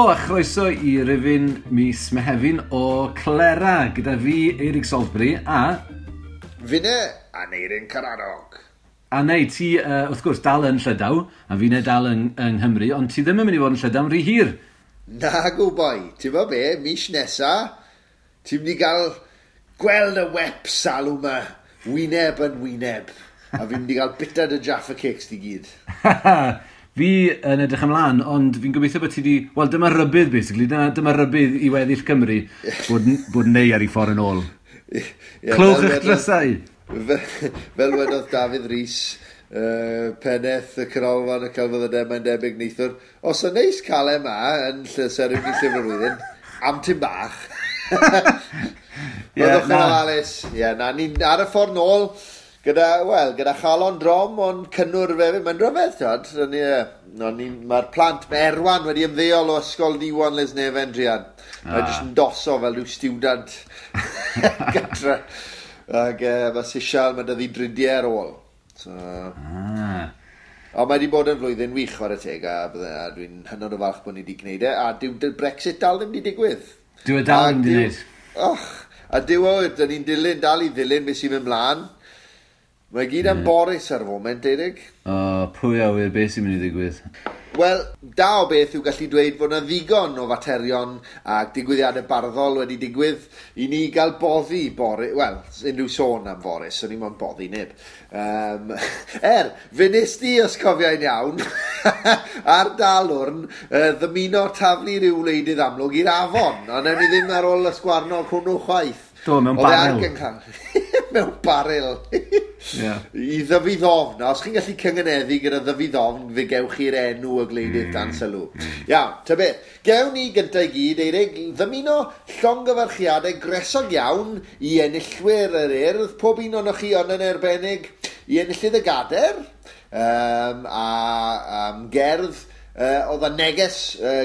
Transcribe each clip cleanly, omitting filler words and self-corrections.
Helo a chroeso i rifyn mis Mehefin o Clera gyda fi, Eirig Salisbury, a... Finne, Aneirin Karadog. A neu, ti, wrth gwrs, dal yn Llydaw, a finne dal yng Nghymru, ond ti ddim yn mynd i fod yn Llydaw yn rhy hir. Nagw, boi. Ti'n bo be, mis nesa, ti'n mynd i gael gweld y wep salw ma, wyneb yn wyneb. A fi'n mynd i gael bita dy Jaffa Cakes di gyd. Fi yn edrych ymlaen, ond fi'n gobeithio bod ti di... Wel, dyma rybudd, basically. Dyma rybudd i weddill Cymru bod neu ar ei ffordd yn ôl. Yeah, Clywch eich drysau! Fel wedodd Dafydd Rhys, pennaeth y Canolfan y Celfyddydau, mae'n debyg neithiwr. Os yn neis cael e ma yn seremoni Llyfr y Flwyddyn, am tim bach. Byddwch yn ofalus. Ie, na, ni'n ar y ffordd nôl. Gyda chalon drom, ond cynnwr hefyd. Mae'n rhyfedd, t'od. Mae'r plant, mae Erwan wedi ymddeol o ysgol Diwan Lesneven, druan. Mae jyst yn doso fel rhyw stiwdant gatre. Ac mae Sisial, mae dyddi dridiau ar ôl. So, Ond mae wedi bod yn flwyddyn wych, chwarae teg, a dwi'n hynod o falch bod ni wedi gwneud e. A dyw Brexit dal ddim wedi digwydd. Dyw e dal ddim wedi gwneud. Och, a dyw o, dyn ni'n dilyn, dal i ddilyn beth sy'n mynd mlaen. Mae gyd am Boris ar y foment, Eirig. O, pwy a wyr beth sy'n mynd i ddigwydd? Wel, da o beth yw gallu dweud fod yna ddigon o faterion a digwyddiadau barddol wedi digwydd i ni gael boddi Boris... Wel, unrhyw sôn am Boris, o'n i'n moyn boddi neb. Fe nes di, os cofiai'n iawn, ar dalwrn, ddymuno taflu rhyw wleidydd amlwg i'r afon, ond ewn ni ddim ar ôl y sgwarnog hwnnw chwaith. Do, mewn baril. Mewn baril. I ddyfu ddofn. Os chi'n gallu cyngeneddu gyda ddyfu ddofn, fe gewch chi'r enw y gwleidydd dan sylw. Iawn, ta beth. Gewn ni gyntaf i gyd, Eirig, ddymuno llongyfarchiadau gresog iawn i enillwyr yr Urdd, pob un ohonoch chi ond yn arbennig, i enillydd y Gader, a gerdd. Oedd y neges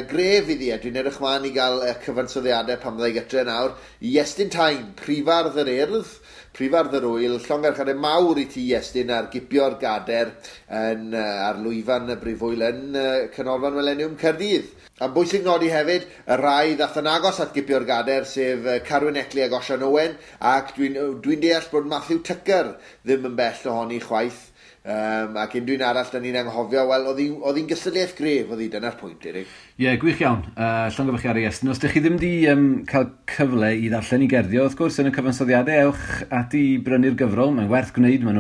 gref iddi, a dwi'n edrych mlaen i gael cyfansoddiadau pan fydda i gytre nawr, i Iestyn Tyne, prifardd yr Urdd, prifardd yr Wyl, llongyfarchiadau mawr i ti Iestyn ar gipio'r gader yn, ar lwyfan y Brifwyl yn Canolfan Mileniwm Caerdydd. A'n bwysig nodi hefyd, y rai ddath yn agos at gipio'r gader, sef Carwyn Eckley ac Osian Owen, ac dwi'n deall bod Matthew Tucker ddim yn bell ohoni chwaith. Ac unrhyw un arall da ni'n anghofio, wel, oedd hi'n gystadleuaeth gref, oedd hi, dyna'r pwynt, Eirig. Ie, gwych iawn. Llongyfarchiadau Iestyn. Os ydych chi ddim wedi cael cyfle i ddarllen i gerddio, wrth gwrs, yn y cyfansoddiadau, ewch ati i brynu'r gyfrol. Mae'n werth gwneud, maen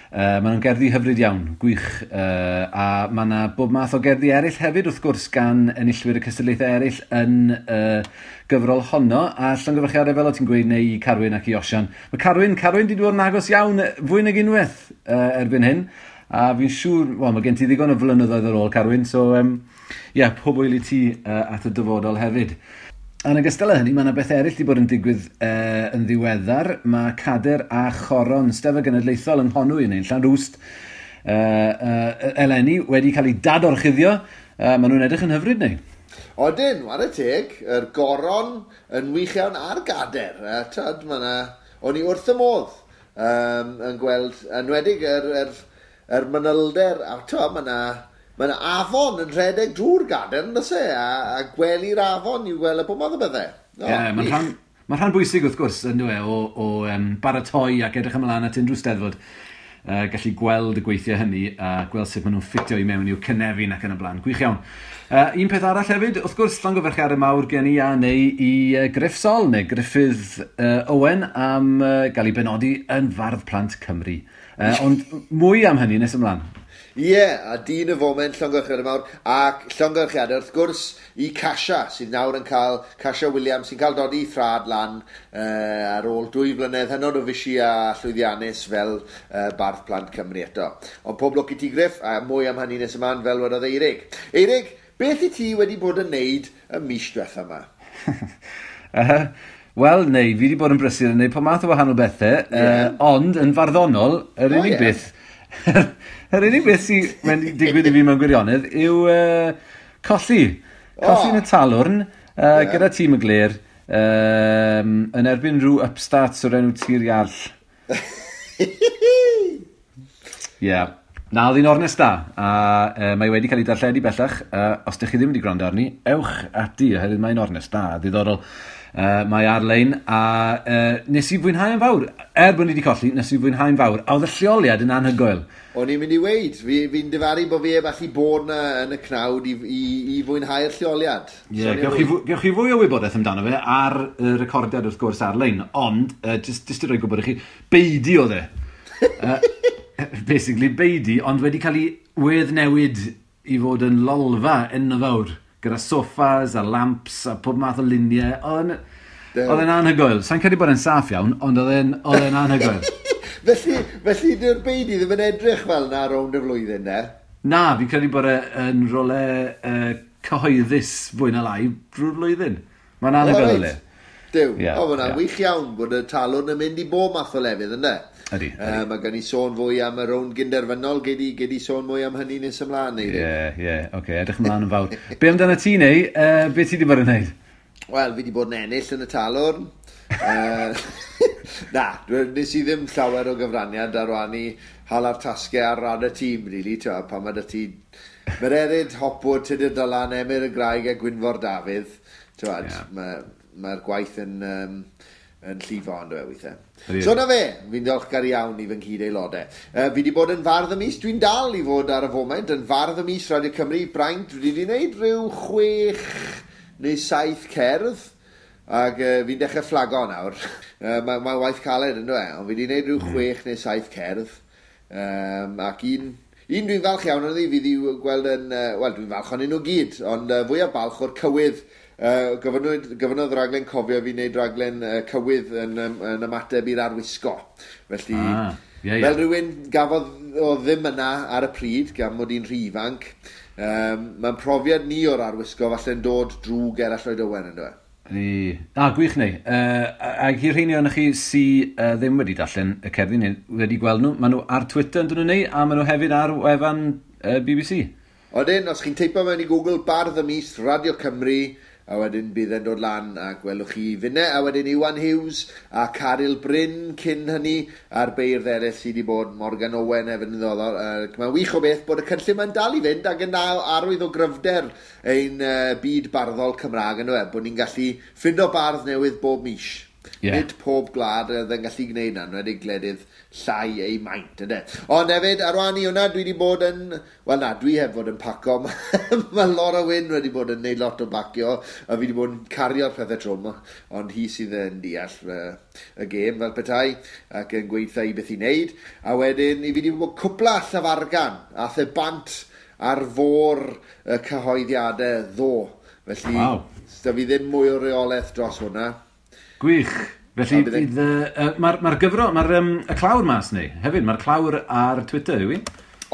nhw'n gerddi hyfryd iawn, gwych. A mae yna bob math o gerddi eraill hefyd, wrth gwrs, gan enillwyr y cystadlaethau eraill yn gyfrol honno. A llongyfarchiadau, fel o ti'n gweud, neu i Carwyn ac i Osian. Mae Carwyn di dod yn agos iawn fwy nag unwaith erbyn hyn. A fi'n siŵr, wel, mae gen ti ddigon o flynyddoedd ar ôl, Carwyn, so pob hwyl i ti at y dyfodol hefyd. Yn ogystal â hynny, mae yna beth eraill wedi bod yn digwydd yn ddiweddar. Mae Cader a Choron Steddfod Genedlaethol yng Nghonwy, neu'n Llanrwst, eleni wedi cael ei dadorchuddio. Maen nhw'n edrych yn hyfryd, neu? Odyn, ware teg, yr goron yn wych iawn a'r gader. Tyd, o'n i wrth y modd yn gweld, enwedig yr manylder, a tyd, mae yna afon yn rhedeg drwy'r gader, yn does e? A gwely'r afon i'w gweld y bob math o bethau. Ie, mae'n rhan bwysig wrth gwrs, yn dyw e, o baratoi ac edrych ymlaen at unrhyw steddfod. Gallu gweld y gweithiau hynny a gweld sut maen nhw'n ffitio i mewn i'w cynefin ac yn y blaen. Gwych iawn. Un peth arall hefyd, wrth gwrs, llongyfarchiadau mawr gen i a neu i Gruff Sol, neu Gruffydd Owen, am gael ei benodi yn Fardd Plant Cymru. Ond mwy am hynny nes ymlaen. Ie, a dyn y foment, llongyfarchiadau mawr, ac llongyfarchiadau wrth gwrs i Casia, sydd nawr yn cael, Casia Williams, sy'n cael dodi thrad lan ar ôl 2 flynedd hynod o fysi a llwyddiannus fel Bardd Plant Cymru eto. Ond pob lwc i ti, Gruff, a mwy am hynny nes ymlaen, fel wedodd Eirig. Eirig, beth i ti wedi bod yn neud y mis diwetha yma? Wel, neu, fi wedi bod yn brysur yn neud pob math o wahanol bethau, ond yn farddonol, yr unig beth... Yr unig beth sy'n wedi digwydd i fi mewn gwirionedd yw colli. Colli yn y talwrn gyda tîm y Gler yn erbyn rhyw upstarts o'r enw Tir Iarll. Ie. Na, oedd hi'n ornest da, a mae wedi cael ei darlledu bellach. Os ydych chi ddim wedi gwrando arni, ewch ati, oherwydd mae'n ornest da, ddiddorol. Mae ar-lein, a nes i fwynhau yn fawr. Er bod ni wedi colli, nes i fwynhau'n fawr. A oedd y lleoliad yn anhygoel. O'n i'n mynd i weud, fi'n difaru bod fi heb allu bod na yn y cnawd i fwynhau'r lleoliad. Ie, yeah, gewch chi fwy o wybodaeth amdano fe ar y recordiad wrth gwrs ar-lein, ond just i roi gwybod i chi, beidi oedd e. Basically, beidi, ond wedi cael ei weddnewid i fod yn lolfa enfawr, gyda sofas a lamps a pob math o luniau. Oedd e'n anhygoel. Sa'n credu bod e'n saff iawn, ond oedd e'n anhygoel. Felly dyw'r beidi ddim yn edrych fel na rownd y flwyddyn, ne? Na, fi'n credu bod e'n rhywle cyhoeddus fwy na lai drwy'r flwyddyn. Mae'n anhygoel le. Duw, yeah, o, mae'n wych iawn bod y talwrn yn mynd i bob math o lefydd, ynddo? Ydy. Mae gen i sôn fwy am y rownd gynderfynol, gei di sôn mwy am hynny nes ymlaen, neu? Ie, oce, edrych ymlaen yn fawr. Be amdano ti, neu? Be ti wedi bod yn neud? Wel, fi wedi bod yn ennill yn y talwrn. Na, nes i ddim llawer o gyfraniad ar wan i hala'r tasgau ar ran y tîm, really, ti'n pan mae 'da ti Mererid, Hopwood, Tudur Dylan, Emyr y Graig a Gwynfor Dafydd, ti'n mae'r gwaith yn llifo ond e weithiau. So na fe, fi'n diolchgar iawn i fy nghyd-aelodau. Fi wedi bod yn fardd y mis, dwi'n dal i fod ar y foment yn fardd y mis Radio Cymru, braint, dwi wedi gwneud rhyw 6 neu 7 cerdd, ac fi'n dechrau fflago nawr. Mae waith caled yn dweud, ond fi wedi gwneud rhyw 6 neu 7 cerdd, ac un dwi'n falch iawn o'n i, fi wedi gweld yn, wel dwi'n falch o'n nhw gyd, ond fwyaf balch o'r cywydd. Gofynnodd raglen Cofio fi wneud raglen cywydd yn ymateb i'r arwisgo. Felly, fel rhywun gafodd o ddim yna ar y pryd, gan mod i'n rhy ifanc, mae'n profiad ni o'r arwisgo falle'n dod drwy Gerallt Lloyd Owen, ynddo e? Gwych neu. Ac i'r rheini ohonoch chi sy ddim wedi darllen y cerddi neu wedi gweld nhw, maen nhw ar Twitter yn dyn nhw neu, a maen nhw hefyd ar wefan BBC. Odyn, os chi'n teipo mewn i Google Bardd y Mis Radio Cymru, a wedyn bydd e'n dod lan a gwelwch chi finne, a wedyn Iwan Hughes a Caryl Bryn cyn hynny, a'r beirdd eraill sydd wedi bod, Morgan Owen hefyd yn ddiddorol. Mae'n wych o beth bod y cynllun mae'n dal i fynd ac yn arwydd o gryfder ein byd barddol Cymraeg yn dweud, bod ni'n gallu ffindo bardd newydd bob mis. Yeah. Nid pob gwlad oedd yn gallu gwneud na, yn enwedig gwledydd llai eu maint, ynddo. Ond hefyd, ar wahân i hwnna, dwi wedi bod yn... Wel na, dwi heb fod yn paco. Mae Laura Wyn wedi bod yn neud lot o bacio, a fi wedi bod yn cario'r pethau trwm, ond hi sydd yn deall y gêm fel petai, ac yn gweithio i beth i wneud. A wedyn, i fi wedi bod cwpla llafargan, a the bant ar fôr y cyhoeddiadau ddo. Felly, wow. Da fi ddim mwy o reolaeth dros hwnna. Gwych. Felly, bydd, mae'r gyfro, mae'r y clawr mas neu, hefyd, mae'r clawr ar Twitter, yw i?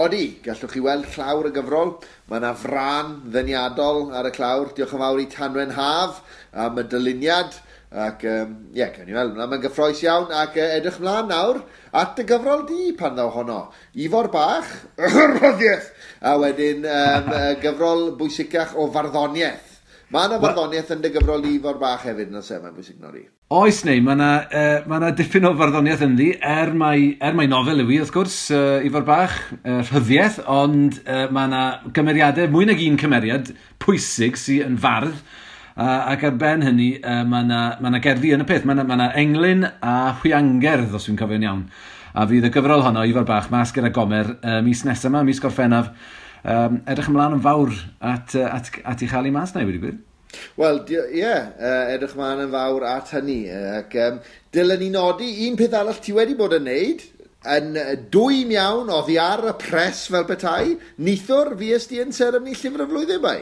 Odi, gallwch chi weld clawr y gyfrol. Mae yna frân ddeniadol ar y clawr. Diolch yn fawr i Tanwen Haf am y dyluniad. Ac, ie, cawn ni weld. Mae'n gyffrous iawn ac edrych mlaen nawr at y gyfrol di pan ddaw honno. Ifor Bach, rhyddiaeth! A wedyn gyfrol bwysicach o farddoniaeth. Mae yna farddoniaeth yn dy gyfrol Ifor Bach hefyd, yn oes e, mae'n bwysig nodi. Oes neu, mae yna dipyn o farddoniaeth ynddi, er mai nofel yw i, wrth gwrs, Ifor Bach, rhyddiaeth, ond mae yna gymeriadau, mwy nag un cymeriad pwysig sydd yn fardd, ac ar ben hynny, mae yna gerddi yn y peth, mae yna englyn a hwiangerdd, os dwi'n cofio'n iawn. A fydd y gyfrol honno, Ifor Bach, mas gyda Gomer, mis nesaf yma, mis Gorffennaf. Edrych ymlaen yn fawr at ei chael ei mas na i wedi gwir. Wel, ie, edrych ymlaen yn fawr at hynny. Ac dylen ni nodi un peth arall ti wedi bod yn neud, yn dwym iawn, oddi ar y pres fel petai, neithiwr fues di yn seremoni Llyfr y Flwyddyn bai?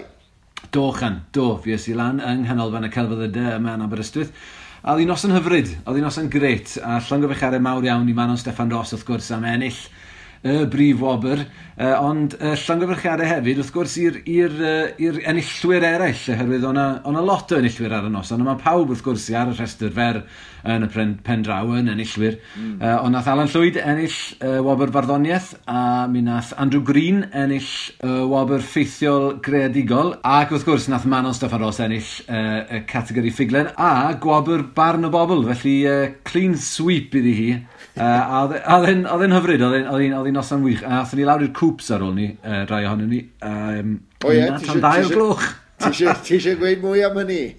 Do, Chan, do, fues i lan yng Nghanolfan y Celfyddydau yma yn Aberystwyth. A oedd hi'n noson hyfryd, oedd hi'n noson grêt, a llongyfarchiadau mawr iawn i Manon Steffan Ros wrth gwrs am ennill y brif wobr, ond llongyfarchiadau hefyd, wrth gwrs, i'r enillwyr eraill, oherwydd o'na lot o enillwyr ar y noson, ond mae pawb, wrth gwrs, ar y rhestr fer yn y pen draw yn enillwyr. Ond nath Alan Llwyd ennill wobr farddoniaeth, a mi nath Andrew Green ennill wobr ffeithiol greadigol, ac wrth gwrs, nath Manon Steffan Ros ennill y categori ffuglen, a gwobr barn y bobl, felly clean sweep iddi hi. A oedd e'n hyfryd, oedd hi'n Oedd hi'n noson wych. A athon ni lawr i'r Coops ar ôl ni, rai ohonon ni. O ie, tan 2 o'r gloch. Ti eisiau gweud mwy am hynny?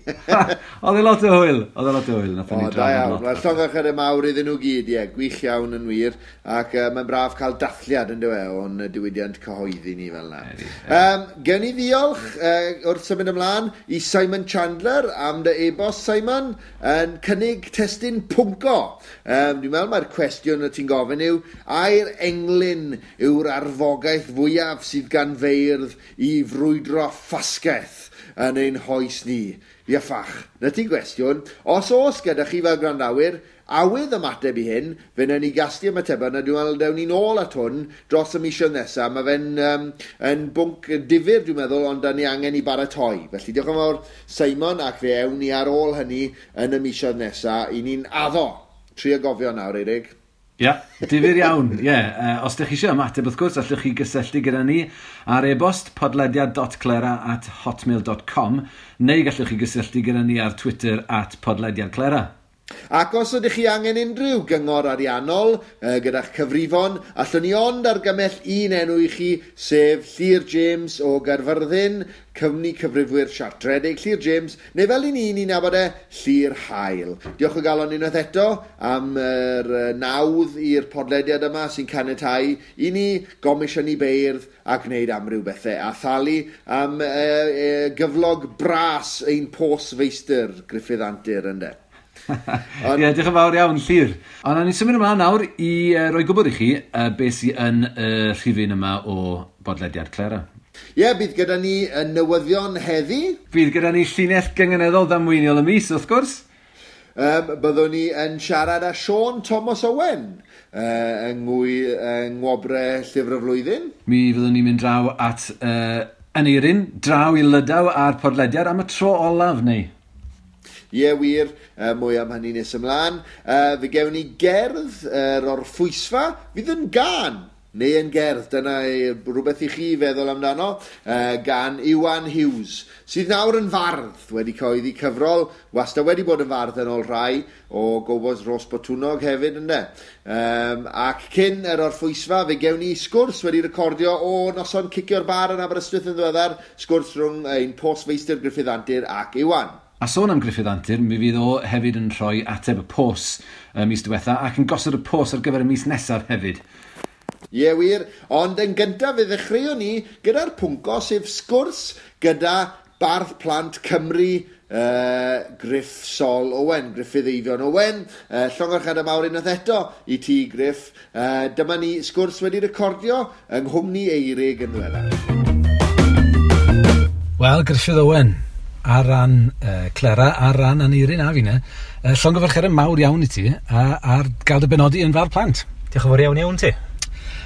Oedd e lot o hwyl. Oedd e lot o hwyl. Nathon ni O, da drafod iawn. lot. Wel, llongyfarchiadau mawr iddyn nhw gyd, ie. Gwych iawn yn wir. Ac mae'n braf cael dathliad yn dywe o'n diwydiant cyhoeddi ni fel yna. Ydi, Gen i ddiolch wrth symud ymlaen i Simon Chandler am dy e-bost, Simon, yn cynnig testun pwnco. Dwi'n meddwl mae'r cwestiwn y ti'n gofyn yw, ai'r englyn yw'r arfogaeth fwyaf sydd gan feirdd i frwydro ffasgaeth yn ein hoes ni? Ia ffach, na ti gwestiwn. Os oes gyda chi fel gwrandawyr, awydd ymateb i hyn, fe wnawn ni gasglu ymatebau, na dwi'n meddwl dewn ni'n ôl at hwn dros y misoedd nesaf. Mae fe'n yn bwnc difyr, dwi'n meddwl, ond da ni angen i baratoi. Felly diolch yn fawr, Simon, ac fe ewn ni ar ôl hynny yn y misoedd nesaf. I ni'n addo. Trio gofio nawr, Eirig. Ie, difyr iawn, ie. Os ydych chi eisiau ymateb, wrth gwrs, allwch chi gysylltu gyda ni ar e-bost podlediad.clera@hotmail.com neu gallwch chi gysylltu gyda ni ar Twitter @podlediadclera. Ac os ydych chi angen unrhyw gyngor ariannol gyda'ch cyfrifon, allwn ni ond argymell un enw i chi, sef Llyr James o Gaerfyrddin, cwmni cyfrifwyr siartredig Llyr James, neu fel i ni'n nabod e, Llyr Hael. Diolch o galon unwaith eto am yr nawdd i'r podlediad yma sy'n caniatáu i ni gomisiynu beirdd a gwneud amryw bethau, a thalu am gyflog bras ein postfeistr Gruffydd Antur, ynde. Ie, diolch yn fawr iawn, Llyr. Ond nawn ni symud ymlaen nawr i roi gwybod i chi beth sydd yn y rhifyn yma o bodlediad Clera. Ie, bydd gyda ni y newyddion heddi. Bydd gyda ni llinell gynganeddol ddamweiniol y mis, wrth gwrs. Byddwn ni yn siarad â Siôn Thomas Owen yng Ngwobre Llyfr y Flwyddyn. Mi fyddwn ni'n mynd draw at Aneirin, draw i Lydaw a'r podlediad am y tro olaf, neu? Ie, wir, mwy am hynny nes ymlaen. Fe gewn ni gerdd yr orffwysfa, fydd yn gan, neu yn gerdd, dyna rhywbeth i chi feddwl amdano, gan Iwan Hughes, sydd nawr yn fardd, wedi cyhoeddi cyfrol, wastad wedi bod yn fardd yn ôl rhai, o Gobos Rhos Botwnnog hefyd, ynde. Ac cyn yr orffwysfa, fe gewn ni sgwrs wedi recordio o noson cicio'r bar yn Aberystwyth yn ddiweddar, sgwrs rhwng ein postfeistr Gruffydd Antur ac Iwan. A sôn am Gruffydd Antur, mi fydd o hefyd yn rhoi ateb y pos y mis diwetha ac yn gosod y pos ar gyfer y mis nesaf hefyd. Ie, wir, ond yn gyntaf fe ddechreuon ni gyda'r pwnco, sef sgwrs gyda bardd plant Cymru, Gruff Sol Owen, Gruffydd Eifion Owen. Llongyfarchiadau mawr unwaith eto i ti, Gruff. Dyma ni sgwrs wedi recordio yng nghwmni Eirig yn ddiweddar. Wel, Gruffydd Owen, ar ran Clera, ar ran Aneirin a finne, llongyfarchiadau mawr iawn i ti ar gael dy benodi yn fardd plant. Diolch yn fawr iawn iawn ti.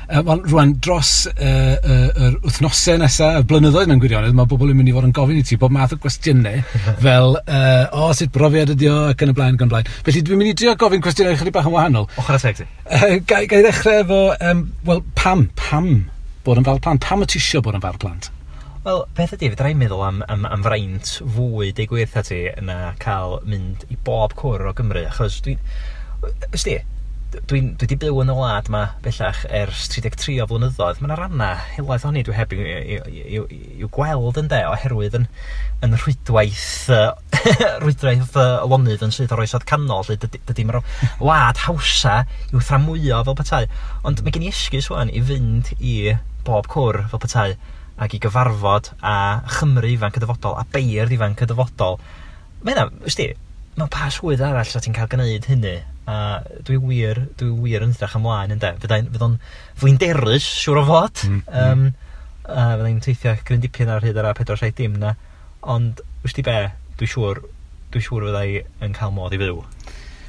Wel, rwan, dros yr wythnosau nesaf, y blynyddoedd mewn gwirionedd, mae bobl yn mynd i fod yn gofyn i ti bob math o gwestiynau fel, o, sut brofiad ydi o, ac yn y blaen, ac yn y blaen. Felly dwi'n mynd i drio gofyn cwestiynau chydig bach yn wahanol. Ochr a teg ti. Ga i ddechrau efo, wel, pam bod yn fardd plant? Pam y ti isio bod yn fardd plant? Wel, peth ydi, fedra i'n meddwl am fraint fwy, deud gwir wrtha ti, na cael mynd i bob cwr o Gymru, achos dwi'n... Ysdi, dwi wedi byw yn y wlad yma bellach ers 33 o flynyddoedd. Mae yna rannau helaeth ohoni dwi heb i'w gweld ynde, oherwydd yn rhwydwaith lonydd yn syth o'r oesoedd canol, lle dydy mae'r wlad hawsa i'w thramwyo fel petai. Ond mae gen i esgus ŵan i fynd i bob cwr fel petai, ac i gyfarfod a Chymru ifanc y dyfodol, a beirdd ifanc y dyfodol. Mae hynna, wsti, mae pa swydd arall sa ti'n cael gwneud hynny, a dwi wir yn edrych ymlaen ynde. Fydd o'n flinderus, siŵr o fod. A fyddai'n teithio gryn dipyn ar hyd yr A470 na. Ond, wsti be, dwi'n siŵr fyddai yn cael modd i fyw.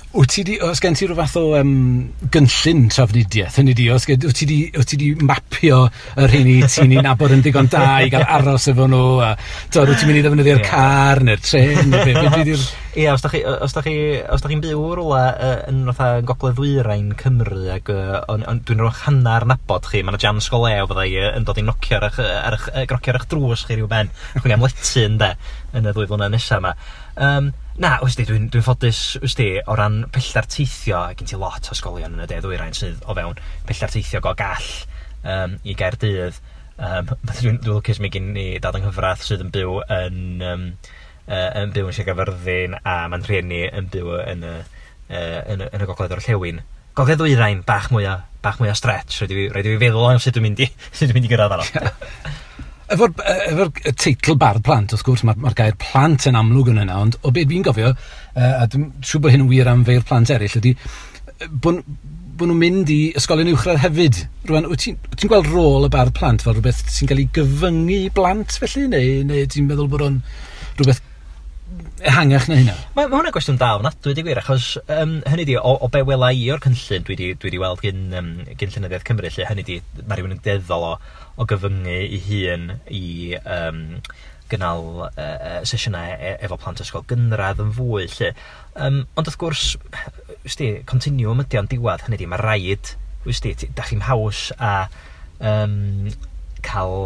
Wyt ti di, oes gen ti rhyw fath o gynllun trafnidiaeth, hynny di, oes gen, wyt ti di mapio y rheini ti'n ei nabod yn ddigon da i gael aros efo nhw, a wyt ti'n mynd i ddefnyddio'r car neu'r trên, neu be di'r... Ie, os da chi'n byw rwla yn fatha gogledd ddwyrain Cymru, ac dwi'n rhoi hanner nabod chi, mae yna jans go lew fyddai yn dod i nocio ar eich drws chi rhyw ben, chwilio am lety ynde, yn y 2 flynedd nesaf yma. Na, wsti, dwi'n ffodus, wsti, o ran pellter teithio, gen ti lot o ysgolion yn y de ddwyrain sydd o fewn pellter teithio go gall i Gaerdydd. Dwi'n lwcus mi gen i dad yng nghyfraith sydd yn byw yn yn byw yn Sir Gaerfyrddin, a ma'n rhieni yn byw yn y gogledd orllewin. Gogledd ddwyrain, bach mwy o stretch, rhaid i fi feddwl am sut dwi'n mynd i gyrraedd arno. Efo'r teitl Bardd Plant, wrth gwrs, mae'r gair plant yn amlwg yn yna, ond o beth fi'n gofio, a dwi'n siŵr bod hyn yn wir am feirdd plant eraill, ydy bod nhw'n mynd i ysgolion uwchradd hefyd. Rwan, wyt ti'n gweld rôl y bardd plant fel rhywbeth sy'n cael ei gyfyngu i blant felly, neu ti'n meddwl bod o'n rhywbeth ehangach na hynna? Mae hwnna'n gwestiwn da ofnadwy, di gwir, achos hynny di, o be wela i o'r cynllun dwi wedi weld gyn Llenyddiaeth Cymru, lle hynny di, mae rhywun yn deddol o gyfyngu ei hun i gynnal sesiynau efo plant ysgol gynradd yn fwy, lle. Ond wrth gwrs, wsti, continuum ydi o'n diwedd, hynny di, mae rhaid, wsti, da chi'n haws a cael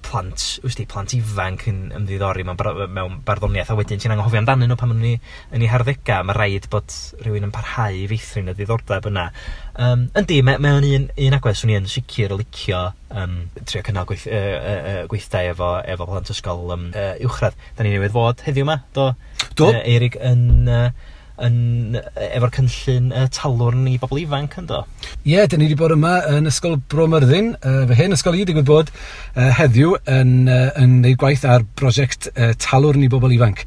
plant, wsti, plant ifanc yn ymddiddori mewn barddoniaeth, a wedyn ti'n anghofio amdanyn nhw pan maen nhw'n yn eu harddegau. Mae rhaid bod rhywun yn parhau i feithrin y ddiddordeb yna. Yndi, mae o'n un agwedd swn i yn sicr o licio trio cynnal gweithdai efo plant ysgol uwchradd. Da ni newydd fod heddiw yma, do? Do. Eirig yn efo'r cynllun talwrn i bobl ifanc, yndo? Ie, dyn ni wedi bod yma yn Ysgol Bro Myrddin, fy hen ysgol i, digwydd bod heddiw yn gwneud gwaith ar brosiect talwrn i bobl ifanc.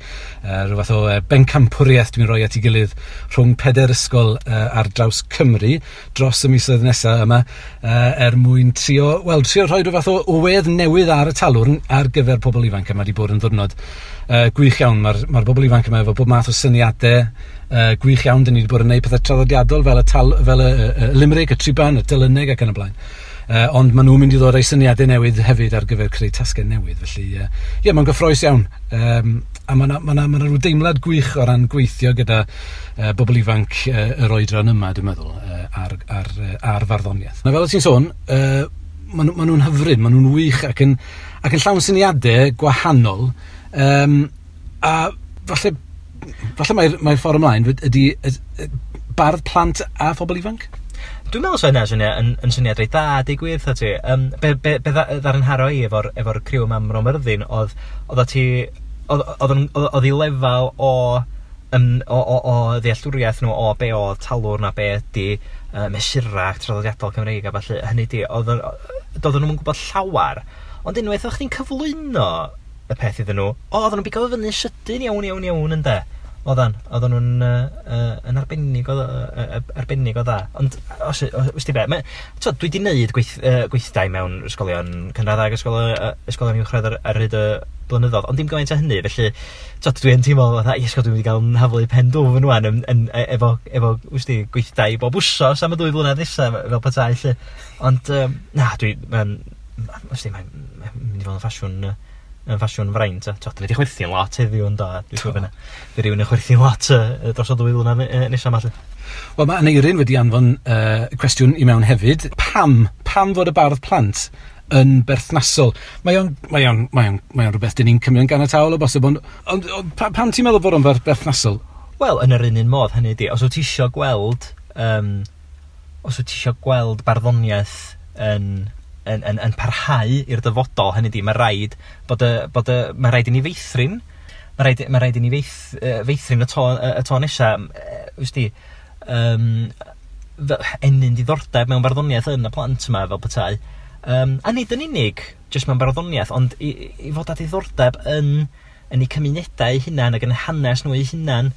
Rhyw fath o bencampwriaeth dwi'n rhoi at ei gilydd rhwng 4 ysgol ar draws Cymru dros y misoedd nesaf yma, er mwyn trio rhoi rhyw fath o wedd newydd ar y talwrn ar gyfer pobl ifanc. Yma wedi bod yn ddiwrnod gwych iawn. Mae'r bobl ifanc yma efo bob math o syniadau gwych iawn. Dyn ni wedi bod yn gwneud pethau traddodiadol fel y limerick, y triban, y delyneg ac yn y blaen. Ond maen nhw'n mynd i ddod â'u syniadau newydd hefyd ar gyfer creu tasgau newydd. Felly, ie, mae'n gyffrous iawn. A mae yna rhyw deimlad gwych o ran gweithio gyda bobl ifanc yr oedran yma, dwi'n meddwl, ar farddoniaeth. Na, fel o ti'n sôn, maen nhw'n hyfryd, maen nhw'n wych ac yn llawn syniadau gwahanol. A falle mae'r ffordd ymlaen ydy bardd plant a phobl ifanc? Dwi'n meddwl sa hynna yn syniad reit dda, deud gwir wrtha ti. Be ddaru nharo i efo'r criw yma ym Mro Myrddin oedd i lefel o ddealltwriaeth nhw o be oedd talwrn a be ydy mesurau traddodiadol Cymreig a ballu. Hynny di, doedden nhw'n gwybod llawar, ond unwaith o'ch chdi'n cyflwyno y peth iddyn nhw, oedden nhw'n bigo fyny sydyn iawn ynde. Oedden nhw'n yn arbennig o dda. Ond, os ti be, dwi wedi gwneud gweithdai mewn ysgolion cynradd ag ysgolion uwchradd ar hyd y blynyddoedd, ond dim gymaint o hynny, felly dwi yn teimlo fatha, iesgo, dwi'n mynd i gael yn haflu pen dwfn ŵan efo wsti, gweithdai bob wsos am y 2 flynedd nesaf, fel petai, lle. Ond, na, mae'n mynd i fod yn ffasiwn yn ffasiwn fraint. Dwi wedi chwerthin lot heddiw yn do. Dwi'n siŵr fyna. Fydd rhywun yn chwerthin lot dros y 2 flynedd nesaf yma. Wel, mae Aneirin wedi anfon cwestiwn i mewn hefyd. Pam fod y bardd plant yn berthnasol? Mae o'n rhywbeth dyn ni'n cymryd yn ganiataol o bosib, ond pam ti'n meddwl bod o'n berthnasol? Wel, yn yr un modd, hynny ydi, os wyt ti isio gweld barddoniaeth yn parhau i'r dyfodol, hynny di, mae rhaid mae rhaid i ni feithrin, mae rhaid i ni feithrin y to nesa, wsti, ennyn diddordeb mewn barddoniaeth yn y plant yma fel petai. A nid yn unig jyst mewn barddoniaeth, ond i fod â diddordeb yn eu cymunedau eu hunain ac yn hanes nhw eu hunain.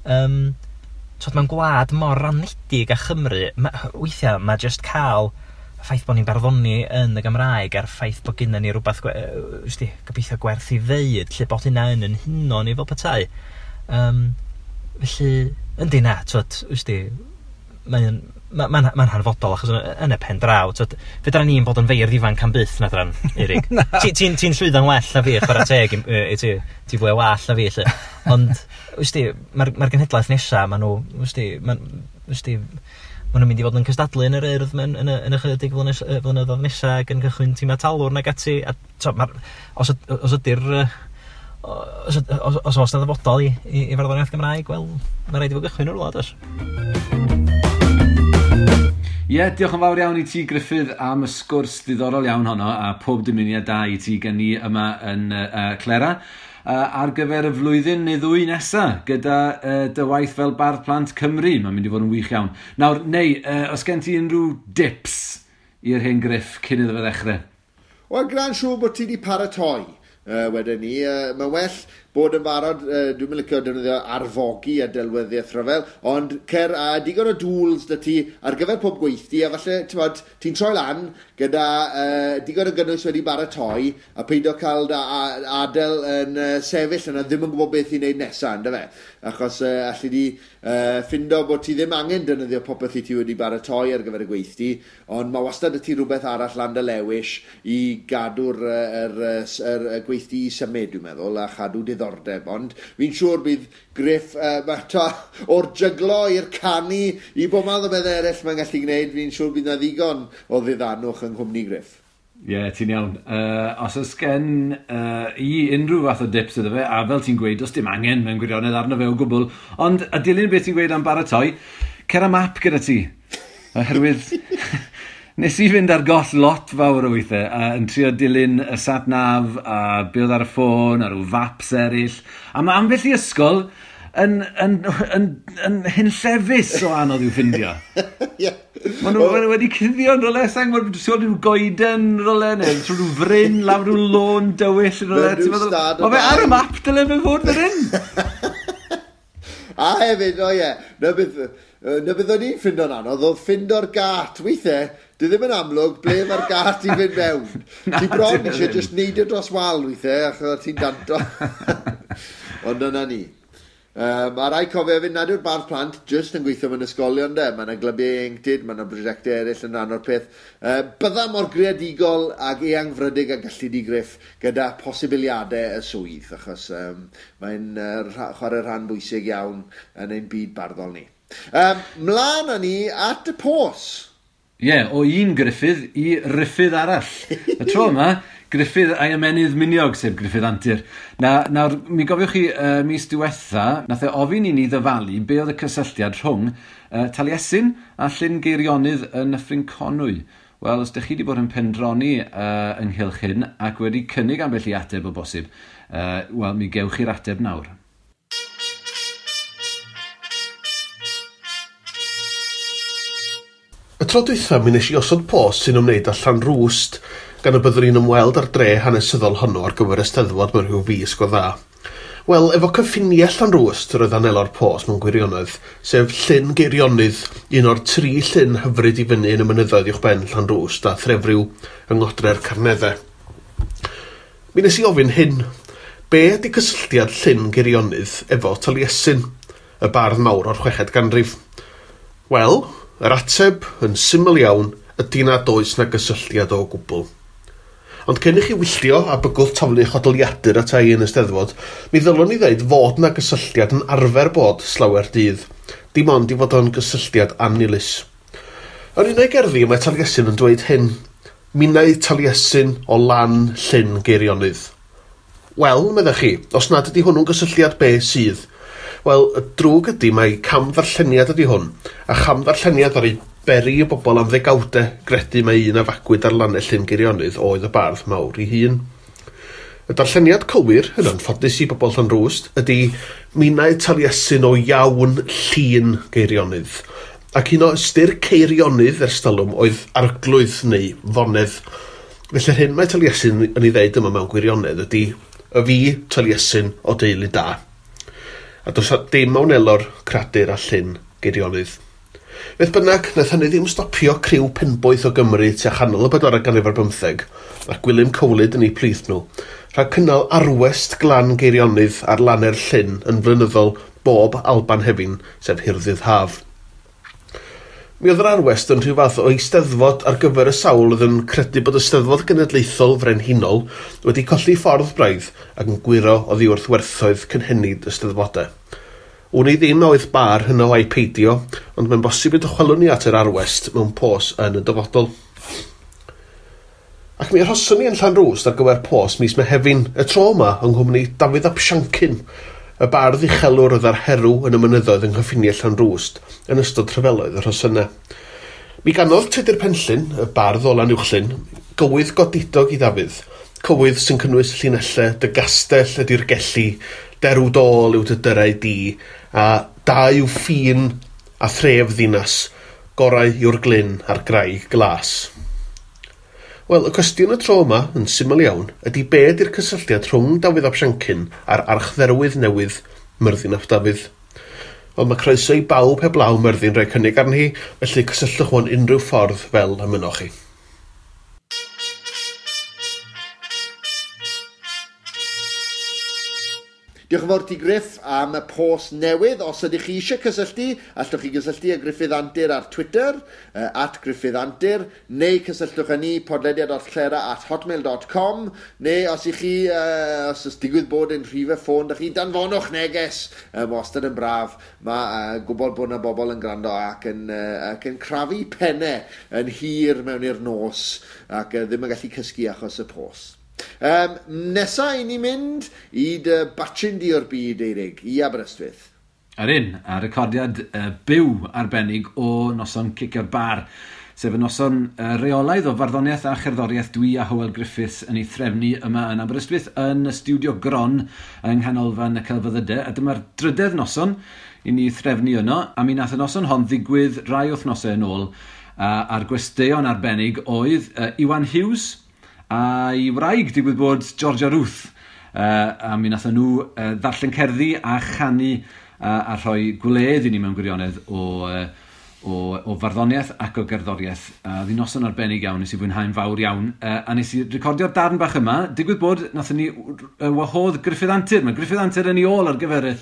Mewn gwlad mor ranedig â Chymru, weithiau mae jyst cael y ffaith bod ni'n barddoni yn y Gymraeg a'r ffaith bod gynna ni rhywbeth gobeithio gwerth i ddeud, lle bod hynna yn huno ni fel petai. Felly, yndi na, mae'n hanfodol, achos yn y pen draw, fedra ni'n bod yn feirdd ifanc am byth na dran, Eirig. Ti'n llwyddo'n well na fi, chwarae teg i ti, ti fwy o wall na fi, lle. Ond, mae'r genhedlaeth nesaf, maen nhw, maen nhw'n mynd i fod yn cystadlu yn yr Urdd yn ychydig flynyddoedd nesaf ac yn cychwyn tîmau talwrn ac ati. A, os ydy'r os, os, os oes 'na ddyfodol i farddoniaeth Gymraeg, wel, mae rhaid i fod gychwyn o'r wlad, oes. Ie, yeah, diolch yn fawr iawn i ti, Gruffydd, am y sgwrs ddiddorol iawn honno, a pob dymuniad da i ti gen i yma yn Clera ar gyfer y flwyddyn neu ddwy nesa gyda dy waith fel Bardd Plant Cymru. Mae'n mynd i fod yn wych iawn. Nawr, neu, os gen ti unrhyw dips i'r hen Griff cyn iddo fe ddechrau? Wel, gwna'n siŵr bod ti wedi paratoi. Wedyn ni, mae'n well bod yn barod, dwi'n mynd licio defnyddio arfogi a delweddiaeth rhyfel, ond cer a digon o dŵls 'da ti ar gyfer pob gweithdy, a falle, ti'n ti'n troi lan gyda digon o gynnwys wedi baratoi, a peidio cael da, adael yn sefyll yna ddim yn gwybod beth i wneud nesaf, ynddo fe? Achos allu di ffindo bod ti ddim angen defnyddio popeth i ti wedi baratoi ar gyfer y gweithdy, ond mae wastad y ti rhywbeth arall lan dy lewis i gadw'r yr, yr, yr, y gweithdy i symud, dwi'n meddwl, a chadw diddordeb. Ond fi'n siŵr bydd Griff, to, o'r jyglo i'r canu, i bob math o beth eraill mae'n gallu gwneud, fi'n siŵr bydd na ddigon o ddiddanwch yng nghwmni Griff. Ie, yeah, ti'n iawn. Os oes gen i unrhyw fath o dips iddo fe, a fel ti'n gweud, does dim angen mewn gwirionedd arno fe o gwbl, ond a dilyn beth ti'n gweud am baratoi, cer am map gyda ti. Oherwydd nes i fynd ar goll lot fawr o weithiau, yn trio dilyn y sat nav a be oedd ar y ffôn, a rhyw faps eraill. A mae ambell i ysgol yn hunllefus o anodd i'w ffindio. Maen nhw ma wedi cuddio yn rhywle, sa'n gwybod, ti'n gweld rhyw goeden rhywle, neu trwy rhyw fryn, lawr rhyw lôn dywyll yn rhywle. Ti'n meddwl, mae fe ar y map dyle fe fod fan hyn. A hefyd, o ie, na beth o'n i'n ffindo'n anodd, oedd ffindo'r gat. Weithiau, dwi ddim yn amlwg ble mae'r gat i fynd mewn. Ti bron eisiau just neidio dros wal weithiau, achos ti'n danto. Ond dyna ni. A rai cofio hefyd nad yw'r bardd plant jyst yn gweithio mewn ysgolion de. Mae yna glybiau ieuenctid, mae yna brosiectau eraill yn rhan o'r peth. Bydda mor greadigol ag eangfrydig a gallu di Griff gyda posibiliadau y swydd, achos mae'n chwarae rhan bwysig iawn yn ein byd barddol ni. Mlaen â ni at y pos. Ie, yeah, o un Gruffydd i Ruffydd arall. Y tro yma, Gruffydd a'i ymenydd miniog, sef Gruffydd Antur. Nawr, mi gofiwch chi mis diwetha, nath e ofyn i ni ddyfalu be oedd y cysylltiad rhwng Taliesin a Llyn Geirionydd yn Nyffryn Conwy. Wel, os ydych chi wedi bod yn pendroni ynghylch hyn ac wedi cynnig ambell i ateb o bosib, wel, mi gewch chi'r ateb nawr. Y tro dwytha mi wnes i osod post sy'n ymwneud â Llanrwst, gan y byddwn ni'n ymweld â'r dre hanesyddol honno ar gyfer y Steddfod mewn rhyw fis go dda. Wel, efo cyffiniau Llanrwst yr oedd anelo'r post mewn gwirionedd, sef Llyn Geirionydd, un o'r tri llyn hyfryd i fyny yn y mynyddoedd uwchben Llanrwst a Threfriw yng Ngodre'r Carneddau. Mi wnes i ofyn hyn, be ydy cysylltiad Llyn Geirionydd efo Taliesin, y bardd mawr o'r chweched ganrif? Wel, yr ateb yn syml iawn ydy nad oes na gysylltiad o gwbl. Ond cyn i chi wylltio a bygwth taflu chodoliadur ata i yn y Steddfod, mi ddylwn i ddeud fod na gysylltiad yn arfer bod slawer dydd, dim ond i fod o'n gysylltiad annilys. Yn un o'i gerddi mae Taliesin yn dweud hyn, minnau Taliesin o lan Llyn Geirionydd. Wel, meddech chi, os nad ydy hwnnw'n gysylltiad be sydd? Wel, y drwg ydy mai camddarlleniad ydy hwn, a chamddarlleniad ar ei beri y bobl am ddegawdau gredu mai un a fagwyd ar lannau Llyn Geirionydd oedd y bardd mawr ei hun. Y darlleniad cywir, yn anffodus i bobl Llanrwst, ydy minnau Taliesin o iawn Llyn Geirionydd. Ac un o ystyr Ceirionydd ers talwm oedd arglwydd neu fonedd. Felly'r hyn mae Taliesin yn ei ddeud yma mewn gwirionedd ydy y fi Taliesin o deulu da. A does dim a wnelo'r cradur a Llyn Geirionydd. Beth bynnag, nath hynny ddim stopio criw penboeth o Gymru tua chanol y bedwaredd ganrif ar bymtheg, a Gwilym Cowlyd yn eu plith nhw, rhag cynnal arwest glan Geirionydd ar lanau'r llyn yn flynyddol bob Alban Hefin, sef Hirddydd Haf. Mi oedd yr arwest yn rhyw fath o eisteddfod ar gyfer y sawl oedd yn credu bod y Steddfod Genedlaethol Frenhinol wedi colli ffordd braidd ac yn gwyro oddi wrth werthoedd cynhenid y Steddfodau. Wn i ddim a oedd bar hynno a'i peidio, ond mae'n bosib y dychwelwn ni at yr arwest mewn pos yn y dyfodol. Ac mi arhoson ni yn Llanrwst ar gyfer pos mis Mehefin, y tro yma yng nghwmni Dafydd ap Siancyn, y bardd uchelwr oedd ar herw yn y mynyddoedd yng nghyffiniau Llanrwst yn ystod rhyfeloedd y Rhosynnau. Mi ganodd Tudur Penllyn, y bardd o Lanuwchllyn, gywydd godidog i Ddafydd, cywydd sy'n cynnwys llinellau dy gastell ydy'r gelli, derw dôl yw dy dyrau di, a da yw ffin a thref ddinas, gorau yw'r glyn a'r graig glas. Wel, y cwestiwn y tro yma, yn syml iawn, ydy be ydy'r cysylltiad rhwng Dafydd ap Siancyn a'r archdderwydd newydd Myrddin ap Dafydd? Wel, mae croeso i bawb heblaw Myrddin rhoi cynnig arni hi, felly cysylltwch mewn unrhyw ffordd fel y mynnoch chi. Diolch yn fawr ti Griff am y post newydd. Os ydych chi eisiau cysylltu, allwch chi gysylltu â Gruffydd Antur ar Twitter, @GruffyddAntur, neu cysylltwch â ni podlediad.clera@hotmail.com, neu os ych chi, os oes digwydd bod yn rhifau ffôn, da chi, danfonwch neges. Wastad yn braf. Mae gwybod bod yna bobl yn gwrando ac yn crafu pennau yn hir mewn i'r nos ac ddim yn gallu cysgu achos y post. Nesa i ni mynd i dy batchyn di o'r byd, Eirig, i Aberystwyth. Ar un, a recordiad byw arbennig o noson Cicio'r Bar, sef y noson reolaidd o farddoniaeth a cherddoriaeth dwi a Hywel Griffiths yn ei threfnu yma yn Aberystwyth yn y stiwdio Gron yng Nghanolfan y Celfyddydau. A dyma'r drydedd noson i ni threfnu yno, a mi nath y noson hon ddigwydd rai wythnosau yn ôl, a'r gwesteion arbennig oedd Iwan Hughes a'i wraig, digwydd bod Georgia Ruth, a mi nathon nhw ddarllen cerddi a chanu a rhoi gwledd i ni mewn gwirionedd o farddoniaeth ac o gerddoriaeth. A oedd hi'n noson arbennig iawn, nes i fwynhau'n fawr iawn, a nes i recordio'r darn bach yma. Digwydd bod nathon ni wahodd Gruffydd Antur. Mae Gruffydd Antur yn ei ôl ar gyfer y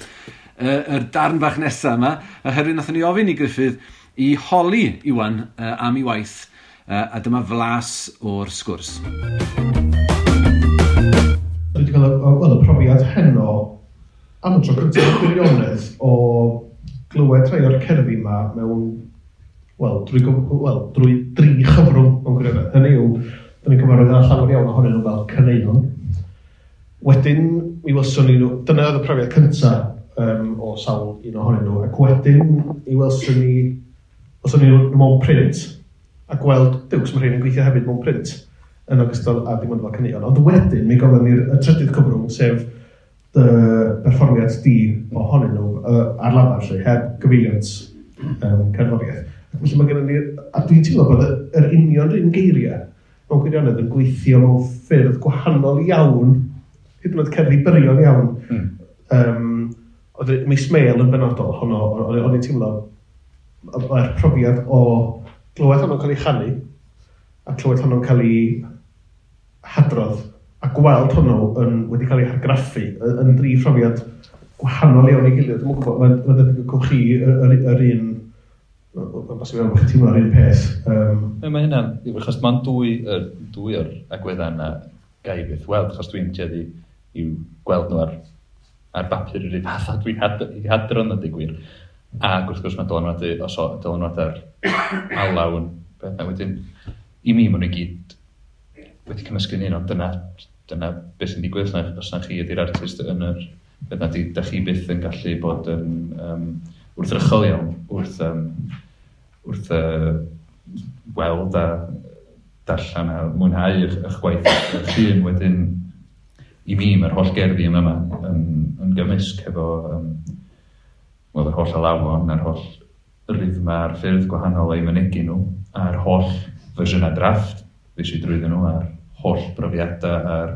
darn bach nesaf yma, oherwydd nathon ni ofyn i Gruffydd i holi Iwan am ei waith, a dyma flas o'r sgwrs. Dwi wedi cael y profiad heno am y tro cyntaf gwirionedd o glywed rhai o'r cerddi yma mewn, wel, drwy dri chyfrwng mewn gwirionedd. Hynny yw, da ni'n cyfarwydd â llawer iawn ohonyn nhw fel caneuon. Wedyn, mi welson ni nhw, dyna oedd y profiad cyntaf o sawl un ohonyn nhw, ac wedyn mi welson ni nhw mewn print, a gweld, diws, mae rhain yn gweithio hefyd mewn print, yn ogystal â dim ond fel caneuon. Ond wedyn, mi gofyn ni'r trydydd cyfrwng, sef dy berfformiad di ohonyn nhw ar lafar, lle, heb gyfeiliant cerddoriaeth. Ac felly mae gennym ni, a dwi'n teimlo bod yr union un geiriau mewn gwirionedd yn gweithio mewn ffyrdd gwahanol iawn, hyd yn oed cerddi byrion iawn. Oedd Mis Mêl yn benodol, honno, o'n i'n teimlo mae'r profiad o glywed honno'n cael ei chanu, a clywed honno'n cael ei hadrodd, a gweld honno wedi cael ei hargraffu yn dri phrofiad gwahanol iawn i gilydd. Dwi'm yn gwybod, mae'n debyg o gwch chi yr un, mae'n bosib iawn bod chi'n teimlo'r un peth. Mae hynna'n, achos mae'n dwy o'r agweddau yna gai byth weld, achos dwi'n tueddu i'w gweld nhw ar bapur yr un fath a dwi'n hadrodd nhw, deud gwir. Ac wrth gwrs mae dylanwad ar alaw yn beth. A wedyn, i mi, maen nhw i gyd wedi cymysgu'n un, ond dyna beth sy'n digwydd, os na chi ydy'r artist yn yr beth na, da chi byth yn gallu bod yn wrthrychol iawn wrth weld a darllen a mwynhau eich gwaith eich hun. Wedyn, i mi, mae'r holl gerddi yma yn gymysg hefo yr holl alawon, a'r holl rhythma, a'r ffyrdd gwahanol o'i mynegi nhw, a'r holl fersiynau drafft fues i drwyddyn nhw, a'r holl brofiadau, a'r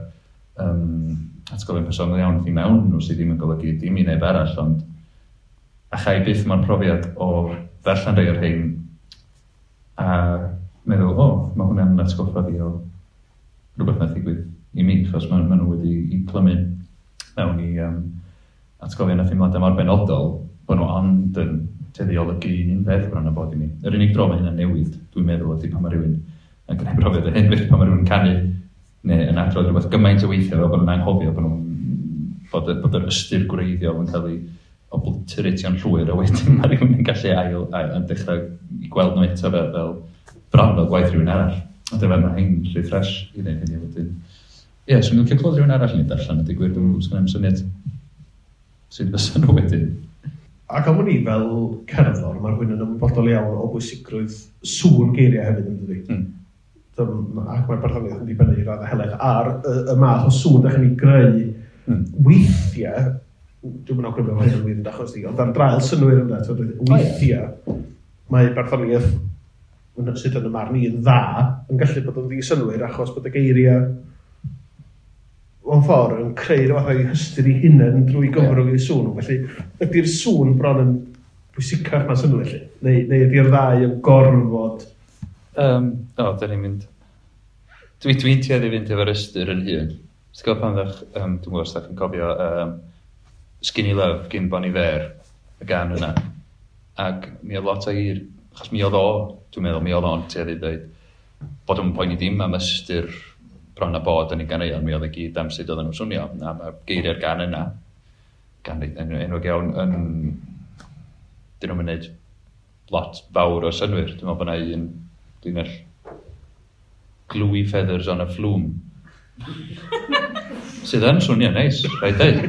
atgofion personol iawn i mewn nhw sydd ddim yn golygu dim i neb arall, ond a chai byth mo'r profiad o ddarllen rhai o'r rhain a meddwl, o, mae hwnna'n atgoffa fi o rhywbeth nath ddigwydd i mi, achos maen nhw wedi i clymu mewn i atgofion a theimladau mor benodol, bod nhw ond yn tueddu i olygu un peth bron a bod i mi. Yr unig dro mae hynna'n newid, dwi'n meddwl, ydy pan mae rhywun yn gwneud profiad o hyn, felly pan mae rhywun yn canu neu yn adrodd rhywbeth gymaint o weithiau fel bod nhw'n anghofio bod yr ystyr gwreiddiol yn cael ei obliteratio'n llwyr, a wedyn mae rhywun yn gallu ail yn dechrau i gweld nhw eto fel bron fel gwaith rhywun arall. Ond efo mae hyn rhy ffres i wneud hynny wedyn. Ie, swn i'n licio clywed rhywun arall yn ei darllen, a digwydd dwi'n sgynna i'm syniad sut fysa nhw wedyn. Ac am wn i fel cerddor, mae rhywun yn ymwybodol iawn o bwysigrwydd sŵn geiriau hefyd yn dydi. Ac mae'r barddoniaeth yn dibynnu i raddau helaeth ar y math o sŵn da chi'n ei greu weithiau, dwi'n mynd awgrymu mae hyn yn wir yn achos di, ond ar draul synnwyr yna, weithiau mae barddoniaeth sydd yn y marn i yn dda yn gallu bod yn ddi-synnwyr achos bod y geiriau mewn ffordd yn creu rhyw fath o'i hystyr ei hunain drwy gyfrwng eu sŵn. Felly, ydy'r sŵn bron yn bwysicach na synnwyr, felly? Neu ydy'r ddau yn gorfod? O, da ni'n mynd... Dwi'n tueddu i fynd efo'r ystyr yn hun. Ti'n gwybod pan ddech, dwi'n gwybod os ydych chi'n cofio Skinny Love gyn Bon Iver, y gan yna. Ac mi oedd lot o hir, achos mi oedd o, dwi'n meddwl, mi oedd o'n tueddu i ddweud bod o'n poeni dim am ystyr bron a bod yn ei ganeuon, mi oedd e gyd am sut oedden nhw'n swnio. A mae geiriau'r gan yna, gan enwog iawn, yn... Dyn nhw'n mynd lot fawr o synnwyr. Dwi'n meddwl bod yna un linell gluey feathers on a flume. Sydd yn swnio neis, rhaid dweud.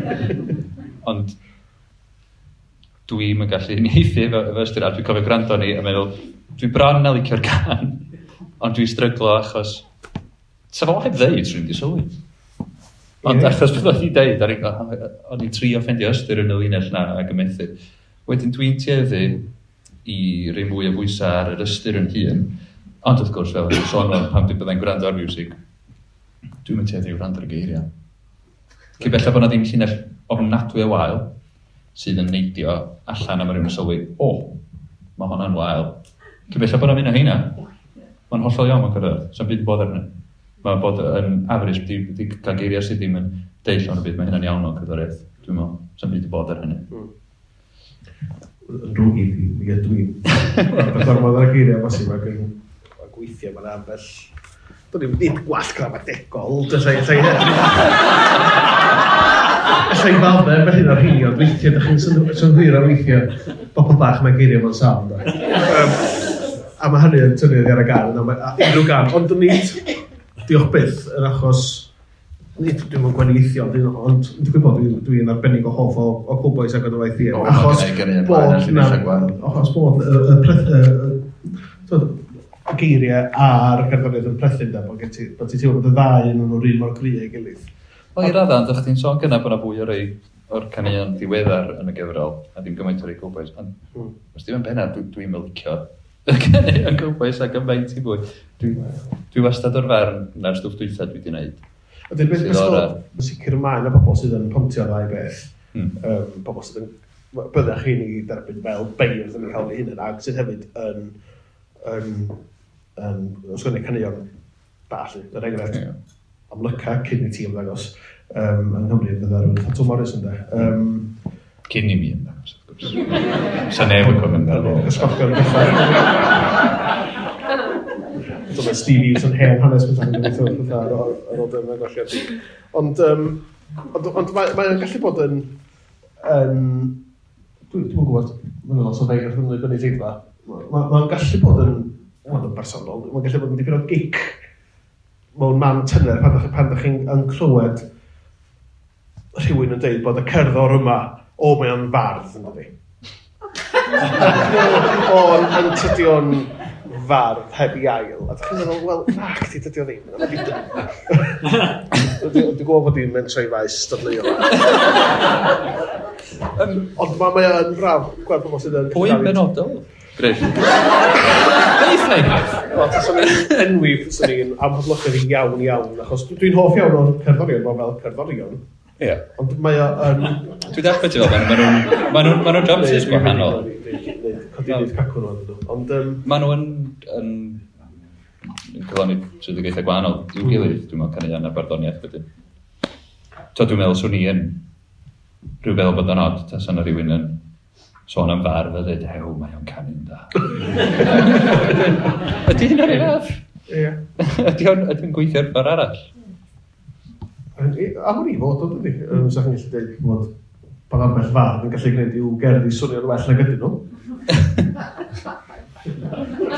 Ond dwi'm yn gallu uniaethu efo ystyr, a dwi'n cofio gwrando ni a meddwl, dwi bron a licio'r gan, ond dwi'n stryglo achos sa fo heb ddeud, swn i'n di sylwi. Ond achos bod o'n i deud, o'n i'n trio ffeindio ystyr yn y linell na ac yn methu. Wedyn dwi'n tueddu i roi mwy o bwysau ar yr ystyr yn hun, ond wrth gwrs, fel o'n sôn o'n pan dwi'n byddai'n gwrando ar music, dwi'n mynd tueddu i wrando ar y geiriau. Cyn belled bod 'na ddim llinell ofnadwy o wael sydd yn neidio allan a mae rhywun yn sylwi, o, mae hwnna'n wael. Cyn belled bod 'na mynd o heina, mae'n hollol iawn mewn cyrraedd, sa'n byd yn bod arnyn. Mae bod yn average, di cael geiriau sydd ddim yn deud llawn y byd, mae hynna'n iawn mewn cerddoriaeth, dwi'n meddwl, sa'n byd yn bod ar hynny. Yn drwg i fi, mi ydw i'n gormod ar y geiriau bosib ac yn gweithio, mae'n ambell... Do'n i'm nid gwall gramadegol, Alla i faddau ambell un o'r rheini, ond weithiau, ydych chi'n synhwyro weithiau, bobl bach mae geiriau mewn safn. A mae hynny yn tynnu oddi ar y gan, unrhyw gan, ond nid, diolch byth, yn achos, nid dwi'n mewn gwahaniaethu, ond dwi'n gwybod dwi'n arbennig o hoff o Cowbois ac o'n waith i. Achos bod y geiriau a'r cerddoriaeth yn plethu, bod ti'n teimlo bod y ddau yn nhw'r un mor gry ei gilydd. Wel, i raddau, ond o'ch ti'n sôn gynna bod yna fwy o rei o'r caneuon diweddar yn y gyfrol, a ddim gymaint o'r rei Cowbois. Ond, os ddim yn bennaf, dwi'n licio y caneuon Cowbois ac yn faint i fwy. Dwi wastad o'r farn na'r stwff dwytha dwi wedi wneud. Ydy'r beth yn sicr mae yna bobl sydd yn pontio ddau beth. Bobl sydd yn... Byddech chi'n ei derbyn fel beirdd yn ei hawl eu hunain, ac sydd hefyd yn ysgrifennu caneuon da, lly. Er enghraifft, amlyca cyn i ti ymddangos yng Nghymru fydda rhywun fatha Twm Morys ynde. Cyn i mi ymddangos, wrth gwrs. Sa neb yn cofio amdano fo. Ysgogion bethau. Dyma Steve Hughes yn hen hanes bethau yn gweithio pethau ar ôl dy ymddangosiad di. Ond mae'n gallu bod yn... Dwi'n gwybod, mae'n lot o feirdd yn y gynulleidfa. Mae'n gallu bod yn... Mae'n bersonol, mae'n gallu bod yn dipyn o gic mewn man tyner pan ydych chi'n yn clywed rhywun yn dweud bod y cerddor yma, o, mae o'n fardd, yn dydi. O, yn tydi o'n fardd heb i ail. A ydych chi'n meddwl, wel, nac di, dydi o ddim. Dwi'n gwybod bod i'n mentro i faes dadleuol. Ond mae o'n braf gweld pobl sydd yn... Pwy yn benodol? Griff. Deutha i Griff. Wel, taswn i'n enwi, taswn i'n amhoblogaidd iawn iawn, achos dwi'n hoff iawn o'r cerddorion, fel cerddorion. Ie. Ond mae o yn... Dwi'n deall beth ti'n fel, maen nhw'n jobs gwahanol. Codi wneud cacwn nhw, ydyn nhw. Ond... Maen nhw yn cyflawni swyddogaethau gwahanol i'w gilydd, dwi'n meddwl, caneuon a barddoniaeth wedyn. So dwi'n meddwl swn i yn rhyw feddwl bod yn od, tasa yna rhywun yn sôn am fardd a dweud, hew, mae o'n canu'n da. Ydy hynna'r un fath? Ie. Ydy o'n gweithio'r ffordd arall? Am wn i fod o, dydy. Sa chi'n gallu dweud bod ambell fardd yn gallu gwneud i'w gerddi swnio'n well nag ydyn nhw.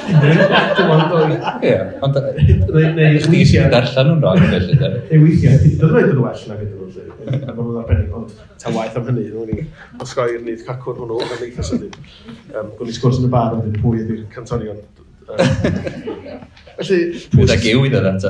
Dim ond dwy. Ie, ond Neu chdi sy'n darllen nhw'n rhaid felly, de. Neu weithiau, hyd yn oed yn well nag ydyn nhw'n lle. Mae nhw'n arbennig, ond ta waeth am hynny, nhw'n ni osgoi'r nyth cacwn hwnnw yn eitha sydyn. Gwni sgwrs yn y bar yn dweud pwy ydy'r cantorion. Felly, pwy... Fydd ag yw i ddod ato.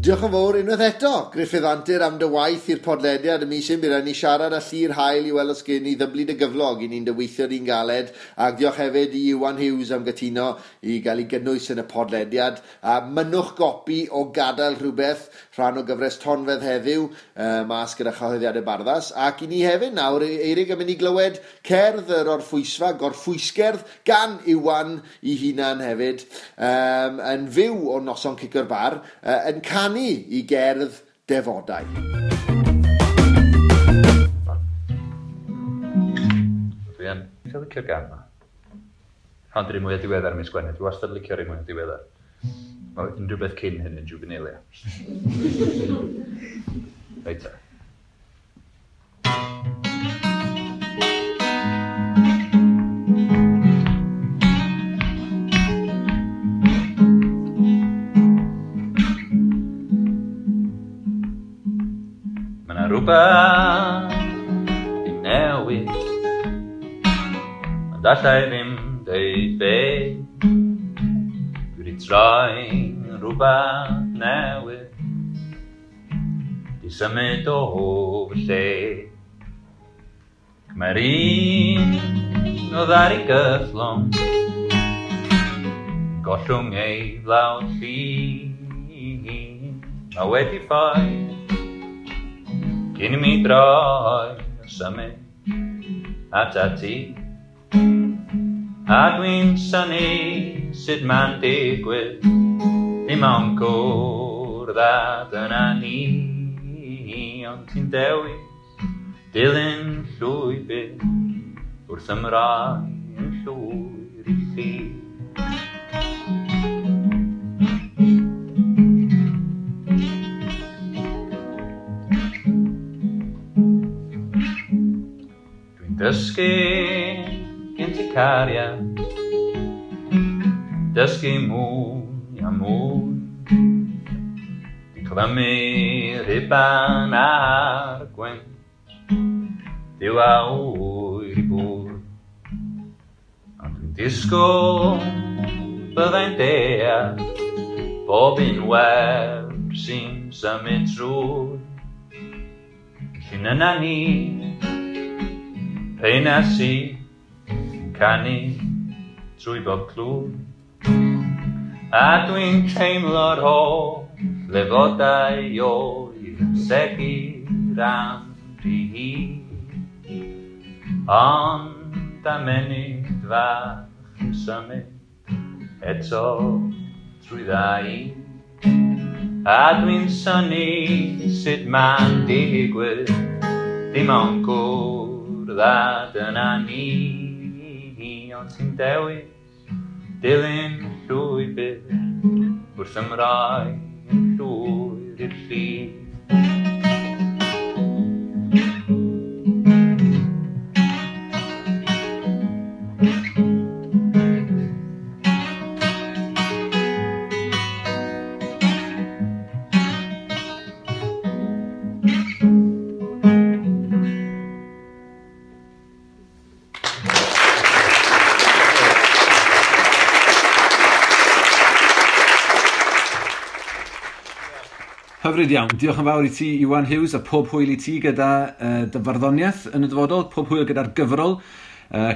Diolch yn fawr unwaith eto, Gruffydd Antur, am dy waith i'r podlediad y mis hyn. Bydd rhaid ni siarad â Llyr Hael i weld os gen i ddyblu dy gyflog i ni'n dyweithio di'n galed. Ac diolch hefyd i Iwan Hughes am gytuno i gael ei gynnwys yn y podlediad. A mynnwch gopi o Gadael Rhywbeth, rhan o gyfres Tonfedd heddiw, mas gyda chyhoeddiadau Barddas. Ac i ni hefyd nawr, Eirig, yn mynd i glywed cerdd yr orffwysfa, gorffwysgerdd, gan Iwan i hunan hefyd, yn fyw o noson Cicio'r Bar, yn canu i gerdd defodau. Dwi yn eitha licio'r gan yma. Ond yr un mwyaf diweddar mis Gwener. Dwi wastad licio'r un mwyaf diweddar. Mae unrhyw beth cyn hyn yn juvenilia. Reit ta. Mae 'na rhywbeth i newid, ond alla i ddim deud be. Dwi wedi troi'n rhywbeth newydd, di symud o fy lle. Mae'r un oedd ar ei gythlwng, gollwng ei flawd llun. Mae wedi ffoi cyn i mi droi a symud atat ti. A dwi'n synnu sut ma'n digwydd, dim ond cwrdd â dyna ni. Ond ti'n dewis dilyn llwybr wrth ymroi yn llwyr i chi. Dwi'n dysgu gen ti cariad, dysgu mwy a mwy. Dwi'n clymu rhuban ar gwynt, Duw a ŵyr i bwy. Ond dwi'n disgwyl byddai'n deall bob un wer sy'n symud trwy. Llun yna ni, rheina sy'n canu trwy bob clwy. A dwi'n teimlo'r holl lefodau oer yn segur am rhy hir. Ond am munud fach yn symud eto trwy ddau. A dwi'n synnu sut ma'n digwydd, dim ond cwrdd â dyna ni. Ond ti'n dewis dilyn llwybr wrth ymroi yn llwyr i'r lli. Hyfryd iawn. Diolch yn fawr i ti, Iwan Hughes, a pob hwyl i ti gyda dy farddoniaeth yn y dyfodol, pob hwyl gyda'r gyfrol.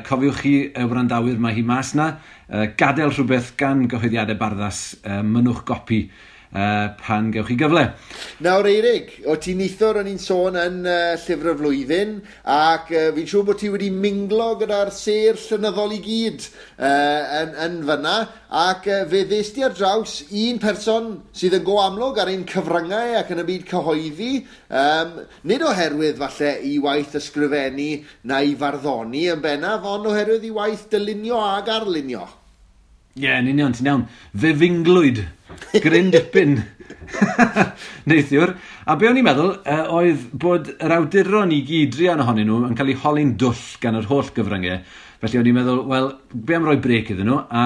Cofiwch chi, wrandawyr, mae hi mas na. Gadael rhywbeth gan gyhoeddiadau Barddas, mynnwch gopi pan gewch chi gyfle. Nawr Eirig, o ti neithiwr o'n i'n sôn yn Llyfr y Flwyddyn, ac fi'n siŵr bod ti wedi minglo gyda'r sêr llenyddol i gyd yn fyna, ac fe ddest ti ar draws un person sydd yn go amlwg ar ein cyfryngau ac yn y byd cyhoeddi, nid oherwydd falle i waith ysgrifennu na i farddoni yn bennaf, ond oherwydd i waith dylunio ag arlunio. Ie, yn union, ti'n iawn. Fe finglwyd Gryn dipyn neithiwr. A be o'n i'n meddwl oedd bod yr awduron i gyd, druan ohonyn nhw, yn cael eu holi'n dwll gan yr holl gyfryngau. Felly o'n i'n meddwl, wel, be am roi brêc iddyn nhw a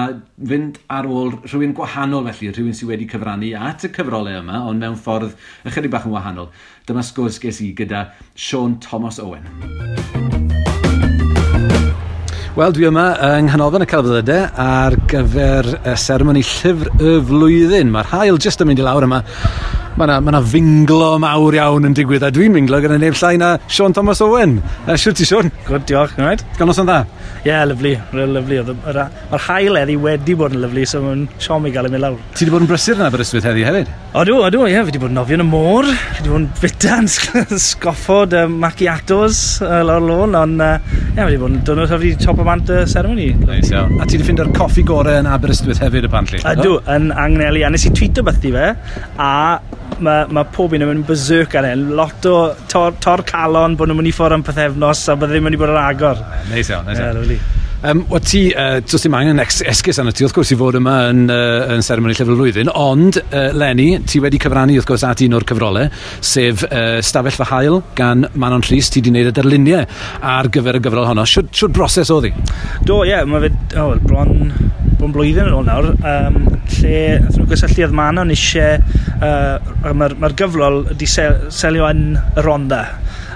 fynd ar ôl rhywun gwahanol felly, rhywun sydd wedi cyfrannu at y cyfrolau yma, ond mewn ffordd ychydig bach yn wahanol. Dyma sgwrs ges i gyda Siôn Tomos Owen. Wel, dwi yma yng Nghanolfan y Celfyddydau ar gyfer y seremoni Llyfr y Flwyddyn. Mae'r haul jyst yn mynd i lawr yma. Mae yna ma finglo mawr iawn yn digwydd, a dwi'n minglo gyda neb llai na Siôn Tomos Owen. Shwt ti, Siôn? Good, diolch. Right? Gael noson dda? Ie, yeah, lyfli. Real lyfli. Mae'r haul heddi wedi bod yn lyfli, so mae'n siom i gael ei mynd lawr. Ti wedi bod yn brysur yn Aberystwyth heddi hefyd? Odw, odw, ie. Fi wedi bod yn nofio yn y môr. Fi wedi bod yn bita'n sgoffod macchiatos lawr lôn, ond ie, fi wedi bod yn dwrnod hyfryd i top o bant y ceremony. Nice, iawn. A ti wedi ffeindio'r coffi gorau yn Aberystwyth hefyd, apparently? Ydw, yn Angneli. A nes i tweeto beth i fe, a mae pob un yn mynd berserk ar hyn. Lot o tor calon bod nhw'n mynd i ffwrdd am pythefnos a bod ddim yn mynd i bod ar agor. Neis iawn, neis iawn. Yeah, lovely. Wel ti, does dim angen esgus arno ti, wrth gwrs, i fod yma yn seremoni Llyfr y Flwyddyn, ond, Lenny, ti wedi cyfrannu, wrth gwrs, at un o'r cyfrolau, sef Stafell Fy Haul gan Manon Rhys. Ti wedi gwneud y darluniau ar gyfer y gyfrol honno. Shwd broses oedd hi? Do, ie, yeah, mae fe, oh, well, bron blwyddyn yn ôl nawr, lle nath nhw gysylltu oedd Manon eisiau, mae'r ma gyfrol wedi selio yn y Rhondda,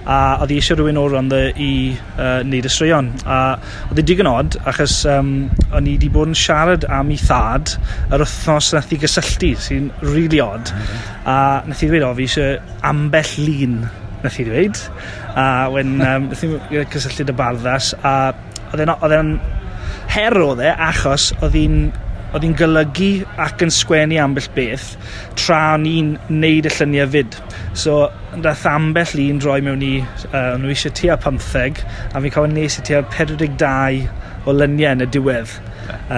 a oedd hi eisiau rhywun o'r Rhondda i wneud y straeon. A oedd hi digon od, achos o'n i wedi bod yn siarad am ei thad yr wythnos nath hi gysylltu, sy'n really odd. A nath hi ddweud, o, fi eisiau ambell lun, nath hi ddweud. A when, nath hi gysylltu dy barddas, a oedd e'n her oedd e, achos oedd hi'n golygu ac yn sgwennu ambell beth tra o'n i'n neud y lluniau fyd. So, dath ambell un droi mewn i, o'n nhw eisiau tua 15, a fi'n cofio nes i tua 42 o luniau yn y diwedd. A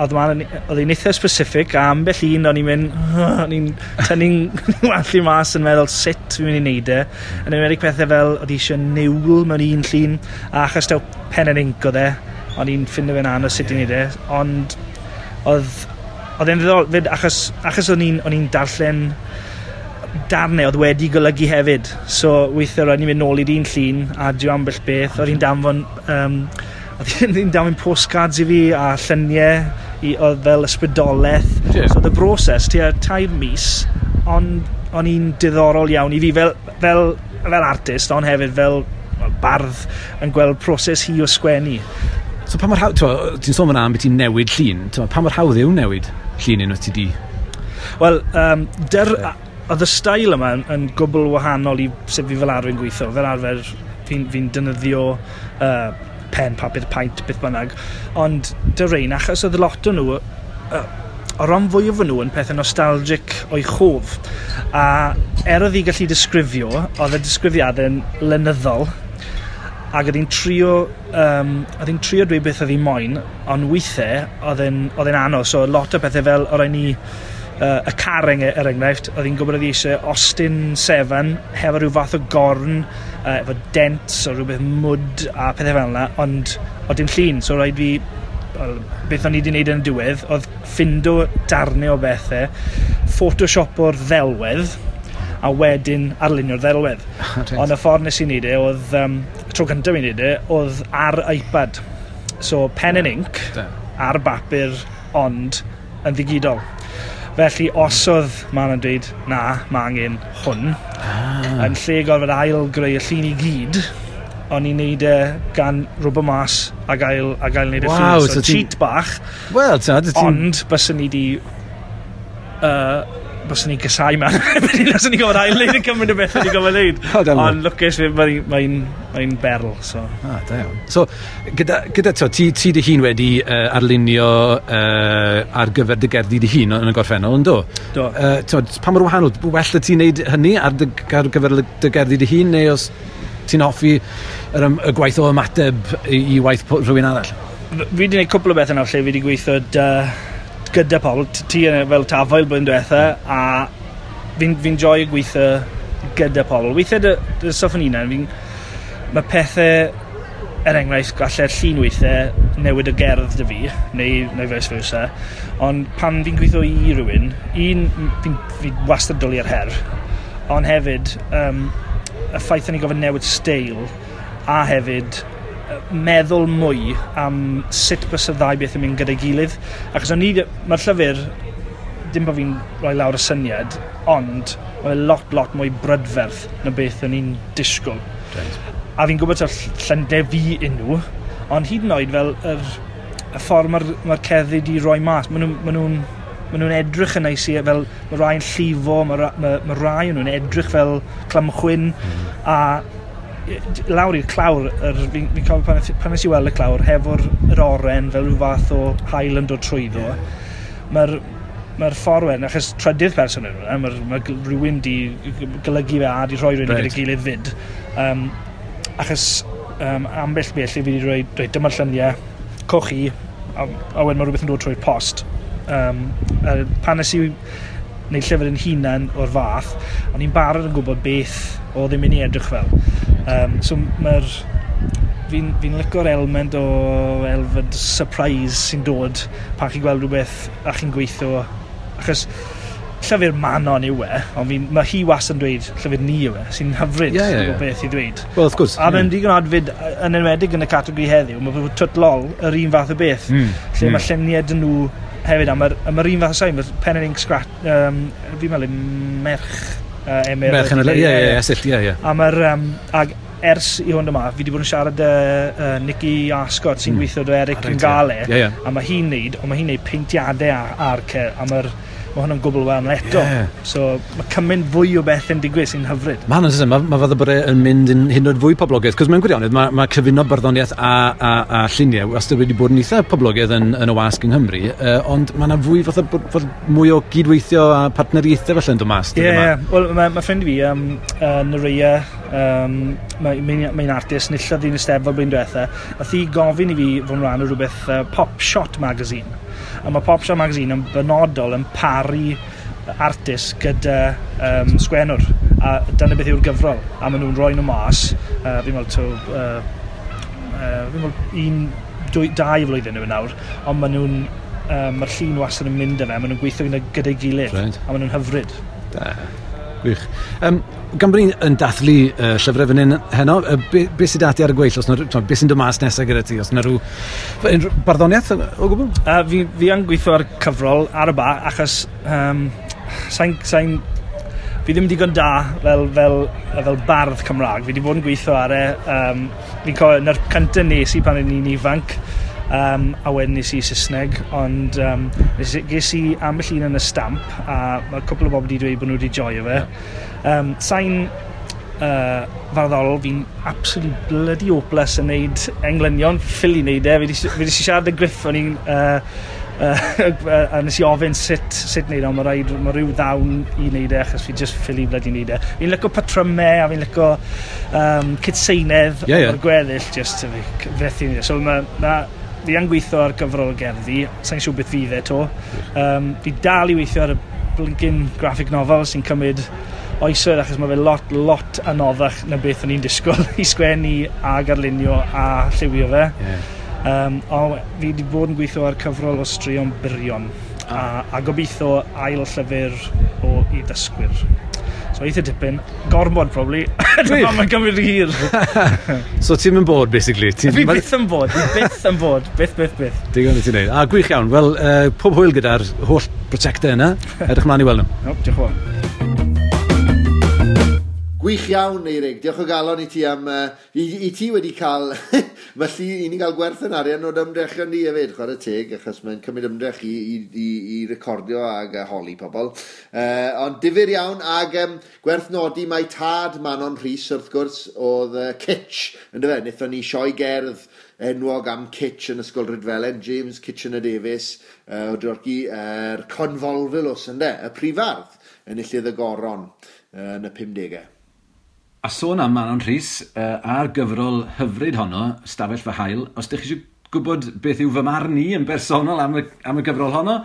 oedd hi'n eitha specific, a ambell un o'n i'n mynd, o'n i'n tynnu'n wallt mas yn meddwl sut fi'n mynd i neud e. Yn enwedig pethau fel, oedd hi eisiau niwl mewn un llun, a achos taw pen and ink oedd e, o'n i'n ffindo fe'n anodd sut i wneud e, ond oedd e'n ddiddorol fyd, achos o'n i'n darllen darnau oedd wedi golygu hefyd, so weithiau roedd ni'n mynd nôl i'r un llun a dio ambell beth, oedd hi'n danfon postcards i fi a lluniau oedd fel ysbrydolaeth. Yeah. So oedd y broses tua 3 mis, ond o'n i'n diddorol iawn i fi fel artist, ond hefyd fel bardd yn gweld proses hi o sgwennu. So pa mor hawdd, ti'n sôn fan'na am beth ti'n newid llun, pa mor hawdd yw newid llun unwaith ti di? Wel, oedd y stael yma yn gwbl wahanol i sut fi fel arfer yn gweithio. Fel arfer fi'n defnyddio pen, papur, paent, beth bynnag. Ond dy rein, achos oedd lot o nhw, o ran fwyaf o nhw yn pethau nostalgic o'i chof. A er oedd hi gallu disgrifio, oedd y disgrifiadau'n lenyddol, ac oedd hi'n trio dweud beth oedd hi moyn, ond weithiau oedd e'n anodd. So lot o pethau fel o rai ni y car er enghraifft, oedd hi'n gwybod oedd hi eisiau Austin 7 hefo rhyw fath o gorn, efo dents o rhywbeth mwd a pethau fel yna, ond oedd dim llun, so rhaid fi, beth o'n i wedi wneud yn y diwedd, oedd ffindo darnau o bethau, Photoshop o'r ddelwedd, a wedyn arlunio'r ddelwedd. Ond y ffordd nes i wneud e, oedd, y tro cyntaf i wneud e, oedd ar iPad. So, pen and ink, ar bapur, ond yn ddigidol. Felly, os oedd Manon dweud, na, mae angen hwn, yn lle gorfod ail greu y llun i gyd, o'n i'n neud e gan rwbio mas a gael neud y llun. So, cheat bach, well, ond byswn ni di... byswn ni'n gysau man. Byswn ni'n gofod ail wneud y cymryd o beth ni'n gofod wneud. Ond lwcus, mae'n berl. So. Ah, da iawn. So, gyda ti dy hun wedi arlunio ar gyfer dy gerddi dy hun yn y gorffennol, yn do? Do. Pa mor wahanol, well y ti'n neud hynny ar gyfer dy gerddi dy hun, neu os ti'n hoffi y gwaith o ymateb i waith rhywun arall? Fi wedi gwneud cwpl o bethau nawr lle fi wedi gweithio gyda pobl, ti fel tafael blwyddyn diwetha, a fi'n joio gweithio gyda pobl. Weithiau dy stwff yn hunan, mae pethau er enghraifft, gallai'r llun weithiau newid y gerdd dy fi, neu vice versa. Ond pan fi'n gweithio i rhywun, un, fi wastad dwlu ar her, ond hefyd, y ffaith o'n i gofyn newid steil, a hefyd meddwl mwy am sut bys y ddau beth yn mynd gyda'i gilydd. Achos o'n i, mae'r llyfr, dim bod fi'n rhoi lawr y syniad, ond mae'n lot, lot mwy brydferth na beth o'n i'n disgwyl. Right. A fi'n gwybod ta'r llynde fi unw, ond hyd yn oed fel y ffordd mae'r cerddi di roi mas, maen nhw'n edrych yn neis i, fel mae rai yn llifo, mae rai nhw'n edrych fel clamchwyn, a lawr i'r clawr, fi'n cofio pan nes i weld y clawr, hefo'r yr oren fel rhyw fath o haul yn dod trwyddo, mae'r ffordd wedyn, achos trydydd person yn hwnna, mae rhywun di golygu fe a di rhoi rhywun gyda'i gilydd fyd. Achos ambell beth lle fi wedi rhoi, reit, dyma'r lluniau, coch i, a wedyn mae rhywbeth yn dod trwy'r post. Pan nes i wneud llyfr yn hunan o'r fath, o'n i'n barod yn gwybod beth oedd yn mynd i edrych fel. So mae'r... Fi'n licio'r element o elfed surprise sy'n dod pan chi'n gweld rhywbeth a chi'n gweithio. Achos llyfr Manon yw e, ond mae hi wastad yn dweud llyfr ni yw e, sy'n hyfryd o beth i ddweud. Well, of course. A mae'n digon adfyd, yn enwedig yn y categori heddiw, mae Twt Lol yr un fath o beth, lle mae lluniau dyn nhw hefyd, a mae'r un fath o sain, mae'r pen and ink scratch, fi'n meddwl merch Emyr. Merch yn y, ie. A mae'r, ag ers i hwn yma, fi wedi bod yn siarad Nicky Ascot sy'n gweithio do Eric yn Gale, a mae hi'n neud, ond mae hi'n neud peintiadau ar a mae'r mae hwnna'n gwbl wahanol eto. So mae cymaint fwy o beth yn digwydd sy'n hyfryd. Mae hwnna'n mae fath o bod yn mynd yn hyd yn oed fwy poblogaidd, cos mewn gwirionedd mae cyfuno barddoniaeth a lluniau wastad wedi bod yn eitha poblogaidd yn y wasg yng Nghymru, ond mae yna fwy fath o bod mwy o gydweithio a partneriaethau felly yn dod mas. Ie, wel mae ffrind fi, Nerea, mae'n artist, nillodd hi'n Eisteddfod blwyddyn diwetha, nath hi gofyn i fi fod yn rhan o rhywbeth Pop Shot Magazine. A mae Pop Shot Magazine yn benodol yn paru artist gyda sgwennwr. A dyna beth yw'r gyfrol. A maen nhw'n rhoi nhw mas. Fi'n meddwl, fi'n meddwl 1, 2, 2 flwyddyn yw nawr. Ond maen nhw'n, mae'r llun wastad yn mynd â fe. Maen nhw'n gweithio gyda'i gilydd. Right. A maen nhw'n hyfryd. Da. Gwych. Gan bod ni'n yn dathlu llyfrau fan hyn heno, be sydd ati ar y gweill? Os na, be sy'n dod mas nesaf gyda ti? Os na rhyw barddoniaeth o gwbl? Fi yn gweithio ar cyfrol ar y ba, achos fi ddim digon da fel bardd Cymraeg. Fi wedi bod yn gweithio ar e. Fi'n cofio, na'r cyntaf nes i pan o'n i'n ifanc, a wedyn nes i Saesneg, ond ges i ambell un yn y stamp, a mae cwpl o bobl wedi dweud bod nhw wedi joio fe. Sain farddol, fi'n absolutely bloody hopeless yn neud englynion, ffili neud e. Fi wedi siarad â Griff, o'n i'n a nes i ofyn sut neud o, mae rhyw ddawn i neud e, achos fi just ffili bloody neud e. Fi'n licio patrymau, a fi'n licio cytseinedd, o'r gweddill, just fethu neud e. So fi yn gweithio ar gyfrol gerddi, sa'n siŵr beth fydd e to. Fi dal i weithio ar y blinking graphic novel sy'n cymryd oesoedd, achos mae fe lot anoddach na beth o'n i'n disgwyl i sgwennu a garlunio a lliwio fe. Ond fi wedi bod yn gweithio ar cyfrol o straeon byrion a gobeithio ail llyfr o i ddysgwyr. So eitha dipyn, gormod probably. Dyma mae'n gymryd hir. So ti'n mynd bod, basically? Fi byth yn bod, byth. Digon i ti'n neud. A gwych iawn. Wel, pob hwyl gyda'r holl prosiectau yna. Edrych mlaen i weld nhw. No, diolch yn fawr. Gwych iawn, Eirig. Diolch o galon i ti am... I ti wedi cael... Felly, i ni gael gwerth yn arian o'r ymdrechion ni hefyd, chwarae teg, achos mae'n cymryd ymdrech i recordio ag holi pobl. Ond difyr iawn, ag gwerth nodi mae tad Manon Rhys, wrth gwrs, oedd Kitch, yndyfe? Wnaethon ni sioe gerdd enwog am Kitch yn Ysgol Rhydfelen, James Kitchener Davies, o Drorci, yr Convolvulus, ynde? Y prifardd, enillydd y goron yn y 50au. A sôn am Manon Rhys, a'r gyfrol hyfryd honno, Stafell Fy Haul, os ydych chi eisiau gwybod beth yw fy marn i yn bersonol am y gyfrol honno,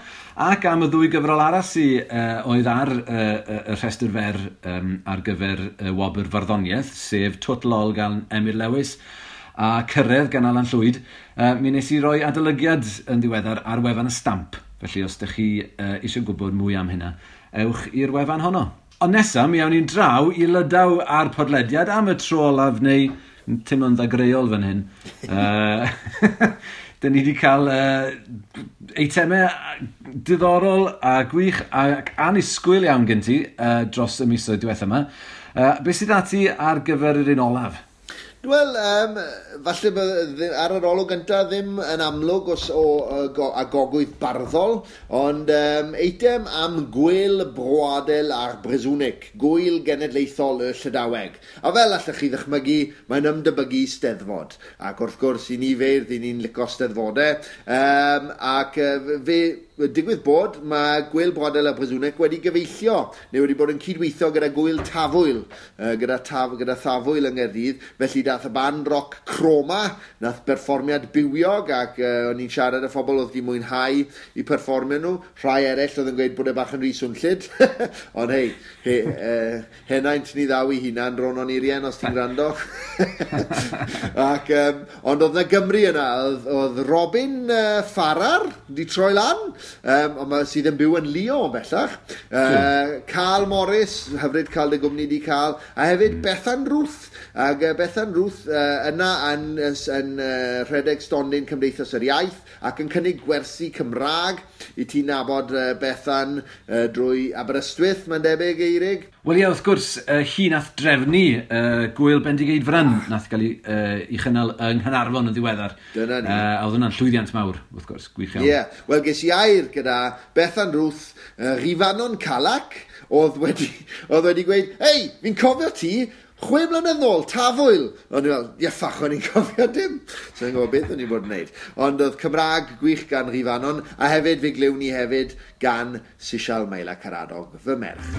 ac am y ddwy gyfrol arall sydd oedd ar y rhestr fer ar gyfer y wobr farddoniaeth, sef Twt Lol gan Emyr Lewis, a Cyrraedd gan Alan Llwyd, mi nes i roi adolygiad yn ddiweddar ar wefan y Stamp. Felly os ydych chi eisiau gwybod mwy am hynna, ewch i'r wefan honno. Ond nesaf, mi awn ni'n draw i Lydaw a'r podlediad am y tro olaf neu teimlo'n ddagreol fan hyn. Dyn ni wedi cael eitemau diddorol a gwych ac annisgwyl iawn gen ti dros y misoedd diwethaf yma. Beth sydd ati ar gyfer yr un olaf? Wel, falle ar yr olwg gyntaf ddim yn amlwg os o a gogwydd barddol, ond eitem am Gwyl Broadel a'r Brezhownig, Gwyl Genedlaethol y Llydaweg. A fel allwch chi ddychmygu, mae'n ymdebygu Steddfod. Ac wrth gwrs, i ni feirdd, i ni'n licio Steddfodau. Ac fe digwydd bod, mae Gwyl Broadel a'r Brezhownig wedi gyfeillio, neu wedi bod yn cydweithio gyda Gwyl Tafwyl, gyda Thafwyl yng Nghaerdydd. Felly dath y band rock Chroma, nath berfformiad bywiog, ac o'n i'n siarad â phobl oedd wedi mwynhau i perfformio nhw. Rhai eraill oedd yn gweud bod e bach yn rhy swnllyd. Ond hei, henaint ni ddaw i hunan, Ronon Irien, os ti'n gwrando. Ac, ond oedd na Gymru yna, oedd Robin Farrar di troi lan, ond sydd yn byw yn Lyon bellach. Carl Morris, hyfryd cael dy gwmni di cael, a hefyd Bethan Ruth. Ac Bethan Ruth yna yn rhedeg stondin Cymdeithas yr Iaith ac yn cynnig gwersi Cymraeg i ti nabod Bethan drwy Aberystwyth, mae'n debyg, Eirig? Wel ie, wrth gwrs, hi nath drefnu Gwyl Bendigeidfran nath gael ei chynnal yng Nghaernarfon yn ddiweddar. Dyna ni. A oedd hwnna'n llwyddiant mawr, wrth gwrs, gwych iawn. Ie, yeah. Wel ges i air gyda Bethan Ruth, Rifanon Calac, oedd wedi gweud, hei, fi'n cofio ti, 6 mlynedd nôl, Tafwyl. O'n i fel, ie, ffach, o'n i'n cofio dim. So i'n gwybod beth o'n i'n bod yn wneud. Ond oedd Cymraeg gwych gan Rifanon, a hefyd fe glywn ni hefyd gan Sisial Maila Caradog, fy merch.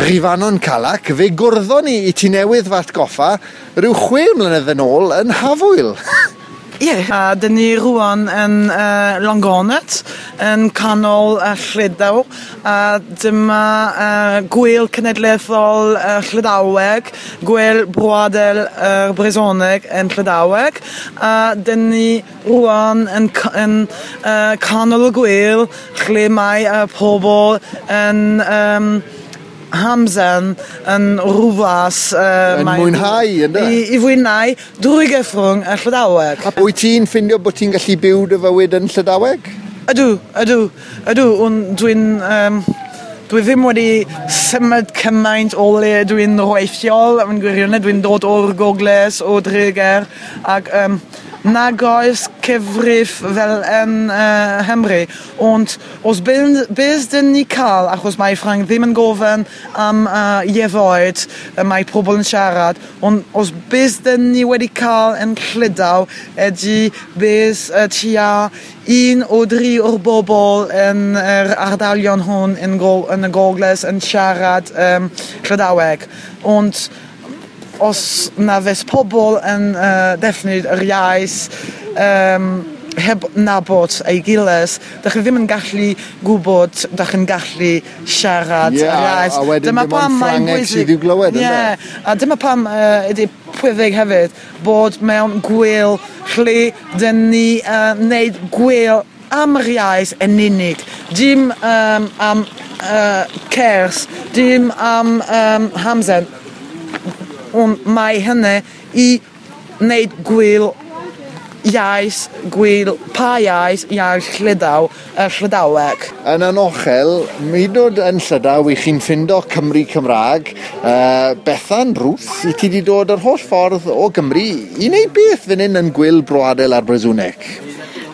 Rifanon Calac, fe gwrddon ni i ti newydd fy atgoffa rhyw 6 mlynedd yn ôl yn Hafwyl. Ie, a dyn ni rwan yn Longonet, yn canol Llydaw, a dyma Gwyl Cenedlaethol Llydaweg, Gwyl Broadel Brezhoneg yn Llydaweg, a dyn ni rwan yn canol y gwyl, lle mae pobl yn hamdden yn rhywfas yn mwynhau, ynddo? I fwynhau drwy gyfrwng y Llydaweg. Wyt ti'n ffindio bod ti'n gallu byw dy fywyd yn Llydaweg? Ydw. Ond dwi ddim wedi symud cymaint o le dwi'n rheithiol, yn gwirionedd, dwi'n dod o'r Gogledd, o Dreger, ac nag oes cyfrif fel yn Nghymru, ond os beth dyn ni cael, achos mae Ffrainc ddim yn gofyn am ieithoedd mae pobl yn siarad, ond os beth dyn ni wedi cael yn Llydaw ydy beth tua 1 o 3 o'r bobl yn yr ardalion hwn yn y Gogledd yn siarad Llydaweg. Ond os na fes pobl yn defnydd yr iaith heb nabod ei gilydd, dach chi ddim yn gallu gwybod, dach chi'n gallu siarad yr iaith. A wedyn dyma dim ond Ffrangeg sydd i'w glywed, ynde? Ie, a dyma pam ydy pwysig hefyd bod mewn gwyl lle dyn ni wneud gwyl am yr iaith yn unig, dim am cers, dim am hamdden. Ond mae hynny i wneud gwyl iaith, gwyl pa iaith, iaith Llydaw, y Llydaweg. Yn anochel, hyd yn oed yn Llydaw, i chi'n ffindo Cymru Cymraeg, Bethan Ruth, i ti wedi dod yr holl ffordd o Gymru i wneud beth fan hyn yn Gwyl Broadel a'r Brezhoneg?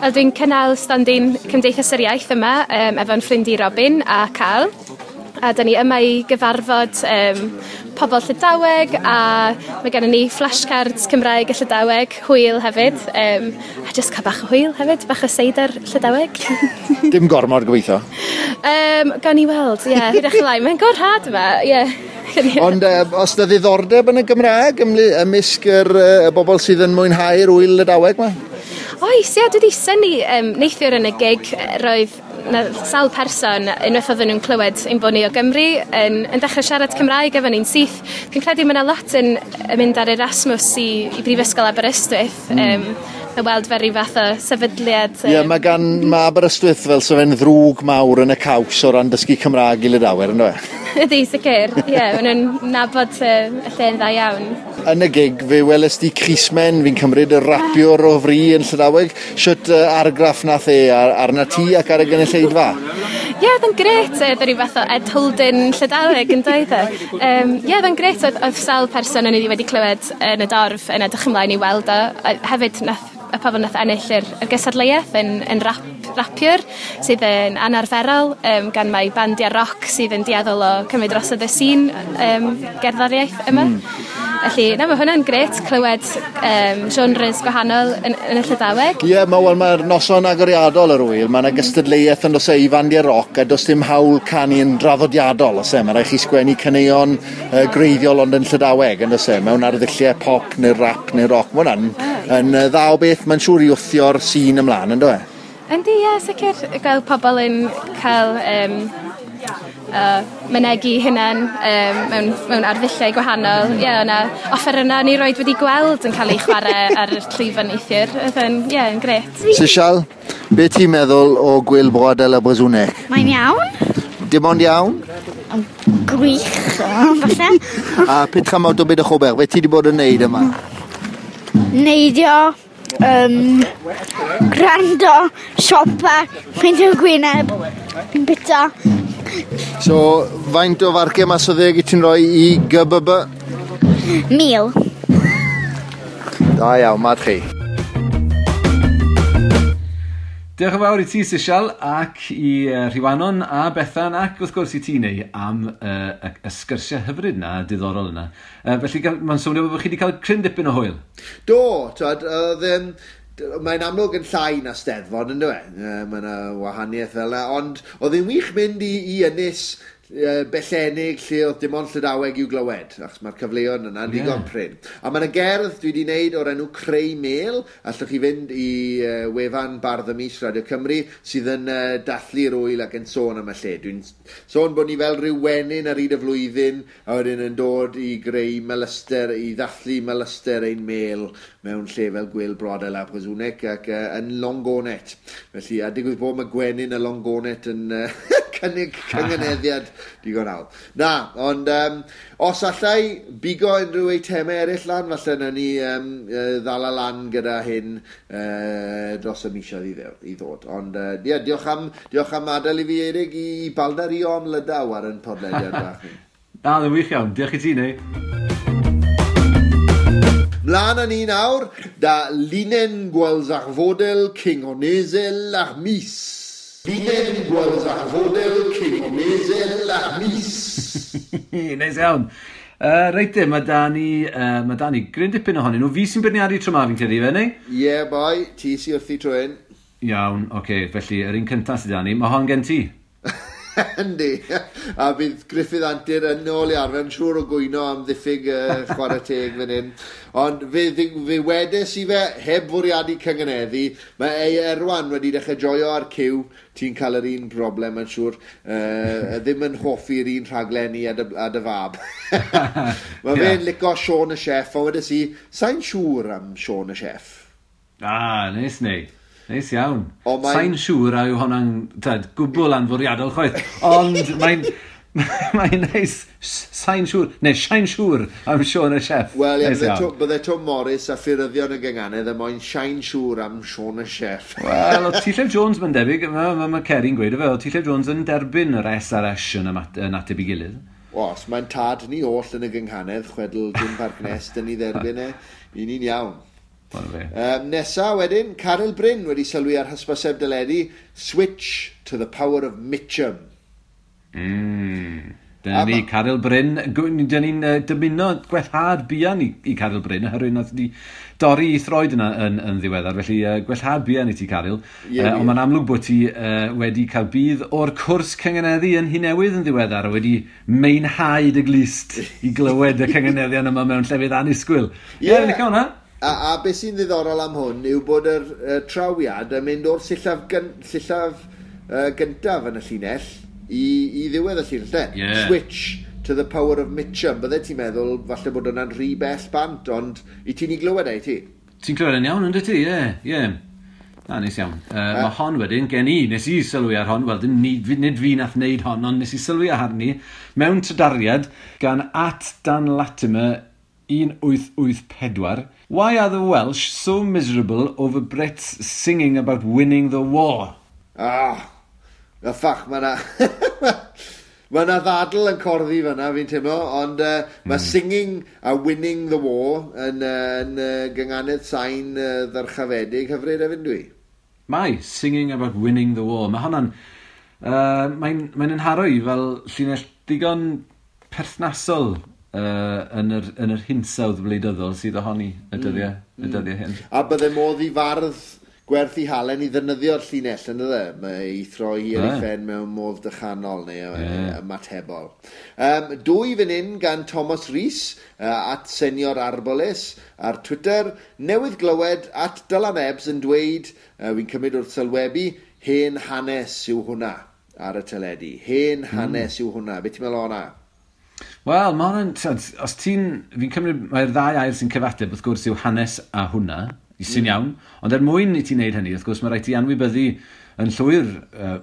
Wel, dwi'n cynnal stondin Cymdeithas yr Iaith yma, efo'n ffrind i Robin a Carl. A dyn ni yma i gyfarfod pobl Llydaweg, a mae gennym ni flashcards Cymraeg a Llydaweg, hwyl hefyd. A jyst cael bach o hwyl hefyd, bach o seidr Llydaweg. Dim gormod gobeithio? Gawn ni weld, ie, hwyrach ymlaen. Mae'n gorhad yma, ie. Ond os na ddiddordeb yn y Gymraeg ymysg y bobl sydd yn mwynhau'r wyl Lydaweg yma? Oes, ie, dwi wedi synnu neithiwr yn y gig, roedd na sawl person, unwaith oedden nhw'n clywed ein bod ni o Gymru, yn dechrau siarad Cymraeg efo ni'n syth. Dwi'n credu mae yna lot yn mynd ar Erasmus i Brifysgol Aberystwyth. A weld fel rhyw fath o sefydliad. Ie, mae Aberystwyth fel sa fe'n ddrwg mawr yn y caws o ran dysgu Cymraeg i Lydawyr, ynddo fe? Ydy, sicr. Ie, maen nhw'n nabod y lle'n dda iawn. Yn y gig, fe weles di Crismen, fi'n cymryd y rapiwr o fri yn Llydaweg. Shwt argraff nath e arna ti ac ar y gynulleidfa? Ie, oedd yn grêt. Oedd rhyw fath o Ed Holden Llydaweg yn doedd e. Ie, oedd yn grêt. Oedd sawl person o'n i wedi clywed yn y dorf yn edrych ymlaen i weld o. Hefyd, nath y pobl nath ennill yr gystadleuaeth yn rapiwr sydd yn anarferol, gan mai bandiau roc sydd yn dueddol o cymryd drosodd y sîn gerddoriaeth yma. Felly, na, mae hwnna'n grêt clywed genres gwahanol yn y Llydaweg. Ie, mae'r noson agoriadol yr wyl, mae yna gystadleuaeth yn does e i fandiau roc a does dim hawl canu yn draddodiadol, oes e? Mae rhaid chi sgwennu caneuon greiddiol ond yn Llydaweg, yn does e? Mewn arddulliau pop neu rap neu roc. Mae hwnna'n yn dda o beth, mae'n siŵr i wthio'r sîn ymlaen, yndo e? Yndi, ie, sicr. Gweld pobl yn cael mynegi hunan mewn arddulliau gwahanol. Ie, o'na offer yna ni roed wedi gweld yn cael ei chwarae ar y llwyfan neithiwr. Oedd yn, ie, yn grêt. Sisial, be ti'n meddwl o Gwyl Broadel a Brezhoneg? Mae'n iawn. Dim ond iawn? Gwych, falle. A petra mawr o beth o be ti wedi bod yn neud yma? Neidio, gwrando, siopa, peintio gwyneb, bita. So, faint o farciau mas o 10 i ti'n rhoi i GBB? 1000. Da iawn, mad chi. Diolch yn fawr i ti, Sisial, ac i Rhiwanon a Bethan, ac wrth gwrs i ti, Neu, am y sgyrsiau hyfryd yna, diddorol yna. Felly, mae'n swnio bod chi wedi cael cryn dipyn o hwyl. Do, twad, oedd... Mae'n amlwg yn llai na Steddfod, ynddo e? Mae yna wahaniaeth fel yna, ond oedd e'n wych mynd i ynys bellenig lle oedd dim ond Llydaweg i'w glywed, achos mae'r cyfleon yna'n digon prin. A mae yna gerdd dwi wedi wneud o'r enw Creu Mêl, allwch chi fynd i wefan Bardd y Mis Radio Cymru, sydd yn dathlu'r wyl ac yn sôn am y lle. Dwi'n sôn bod ni fel rhyw wenyn ar hyd y flwyddyn, a wedyn yn dod i greu melyster, i ddathlu melyster ein mêl mewn lle fel Gwyl Brodel a Brezhoneg ac yn Longonet. Felly, a digwydd bod mae gwenyn y Longonet yn cynnig cynganeddiad digon hawdd. Na, ond os allai bigo unrhyw eitemau eraill lan, falle nawn ni ddala lan gyda hyn dros y misoedd i ddod. Ond ie, diolch am adael i fi, Eirig, i baldario am Lydaw ar yn podlediad bach ni. Na, ddim wych iawn. Diolch i ti, Neu. Mlaen â ni nawr, da Linen Gwalzarfodel Kingonezel ar mis. Linen Gwalzarfodel Kingonezel ar mis. Neis iawn. Reit de, mae da ni gryn dipyn ohonyn nhw. Fi sy'n beirniadu tro ma, fi'n credu, fe, neu? Ie, boi, ti sy wrthi tro hyn. Iawn, oce, felly, yr un cyntaf sydd da ni, mae hon gen ti. Yndi, a bydd Gruffydd Antur yn ôl i arfer yn siŵr o gwyno am ddiffyg chwarae teg fan hyn. Ond fe wedes i fe, heb fwriadu cynganeddu, mae ei Erwan wedi dechrau joio ar cyw, ti'n cael yr un broblem yn siŵr, ddim yn hoffi'r un rhaglenni a dy fab. Mae fe'n licio Siôn y Chef, ond wedes i, sa'n siŵr am Siôn y Chef. Ah, neis neu. Neis iawn. Sa'n siŵr a yw honna'n gwbl anfwriadol chwaith, ond mae'n neis, sa'n siŵr, neu sa'n siŵr am Siôn y Chef. Wel, ie, bydde Tom Morris a ffuryddion y gynganedd yn moyn sa'n siŵr am Siôn y Chef. Wel, o T. Llew Jones mae'n debyg, mae Ceri'n gweud o fe, o T. Llew Jones yn derbyn yr S a'r S yn ateb i gilydd. Os, mae'n tad ni oll yn y gynghanedd, chwedl Jim Parc Nest yn ei dderbyn e, i ni'n iawn. Nesa wedyn, Caryl Bryn wedi sylwi ar hysbyseb deledu, Switch to the Power of Mitchum. Dyna ni, Caryl Bryn. Dyna ni'n dymuno gwellhad buan i Caryl Bryn, oherwydd nath di dorri i throed yna yn ddiweddar. Felly gwellhad buan i ti, Caryl. Ond mae'n amlwg bod ti wedi cael budd o'r cwrs cynganeddu yn Nhŷ Newydd yn ddiweddar, a wedi meinhau dy glust i glywed y cynganeddion yma mewn llefydd annisgwyl. Ie, licio hwnna. A beth sy'n ddiddorol am hwn yw bod yr trawiad yn mynd o'r sillaf gyntaf yn y llinell i ddiwedd y llinell, de? Yeah. Switch to the power of Mitcham. Bydde ti'n meddwl falle bod hwnna'n rhy bell bant, ond i ti'n ei glywed e, i ti? Ti'n clywed yn iawn, ynddo ti? Ie. Na, neis iawn. Mae hon wedyn, gen i, nes i sylwi ar hon, wel, nid fi nath wneud hon, ond nes i sylwi ar arni mewn trydariad gan @DanLatimer 1884. Why are the Welsh so miserable over Brits singing about winning the war? Ah, y ffach, mae na... Mae yna ddadl yn corddi fyna, fi'n teimlo, ond mae singing a winning the war yn gynganedd sain ddyrchafedig hyfryd hefyd, dwi. Mae, singing about winning the war. Mae hwnna'n... Mae'n yn haro i fel llinell digon perthnasol yn yr hinsawdd wleidyddol sydd ohoni y dyddiau hyn. A bydde modd i fardd gwerth i halen i ddefnyddio'r llinell, yn dde? Mae ei throi hi ar ei phen mewn modd dychanol neu ymatebol. Dwy fan hyn gan Thomas Rees @SeniorArboles ar Twitter. Newydd glywed @Dylan Ebbs yn dweud, fi'n cymryd wrth sylwebu, hen hanes yw hwnna ar y teledu. Hen hanes yw hwnna. Be ti'n meddwl o hwnna? Wel, mae hwnna'n... Os ti'n... Fi'n cymryd... Mae'r ddau air sy'n cyfateb, wrth gwrs, yw hanes a hwnna, sy'n iawn. Ond er mwyn i ti wneud hynny, wrth gwrs, mae rhaid ti anwybyddu yn llwyr,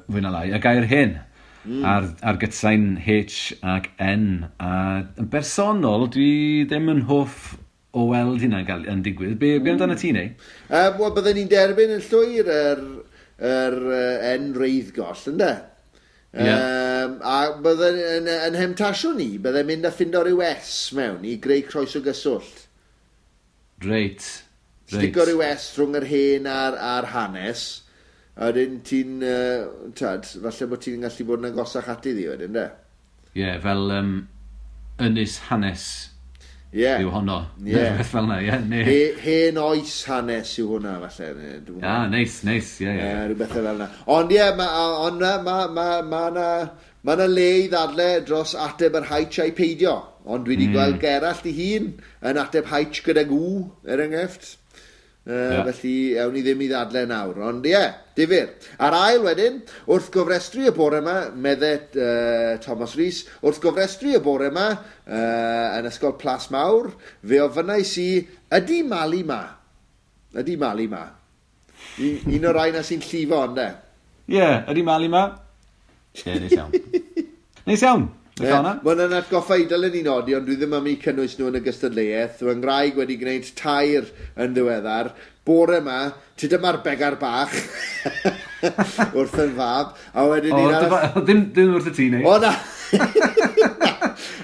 fwy na lai, y gair hen. Ar gytsain H ac N. A yn bersonol, dwi ddim yn hoff o weld hynna'n yn digwydd. Be amdano ti, neu? Wel, bydden ni'n derbyn yn llwyr yr N reiddgoll, ynde? Yeah. A bydden yn hemtasiwn ni, bydden mynd a ffindo rhyw S mewn i greu croeso gyswllt. Reit. Stico rhyw S rhwng yr hen a'r hanes, a wedyn ti'n, falle bod ti'n gallu bod yn agosach ati ddi wedyn, de? Ie, yeah, fel ynys hanes yw honno. Ie. Beth fel yna, ie. Hen oes hanes yw hwnna, falle. Ah, neis, ie. Rhywbeth fel yna. Ond ie, mae yna le i ddadle dros ateb yr haich a'i peidio. Ond dwi wedi gweld Gerallt ei hun yn ateb haich gydag W, er enghraifft. Felly, awn ni ddim i ddadle nawr. Ond ie, difyr. A'r ail wedyn, wrth gofrestru y bore yma, medde Thomas Rees, wrth gofrestru y bore yma, yn Ysgol Plas Mawr, fe ofynnais i, ydy Mali ma? Ydy Mali ma? Un o'r rai na sy'n llifo, ynde? Ie, ydy Mali ma? Ie, neis iawn. Neis iawn. Mae hwnna'n atgoffa i dylen ni nodi, ond dwi ddim am eu cynnwys nhw yn y gystadleuaeth. Fy ngwraig wedi gwneud 3 yn ddiweddar. Bore yma, ti dyma'r begar bach wrth yn fab. A wedyn Ddim wrth y ti, neu? O, na!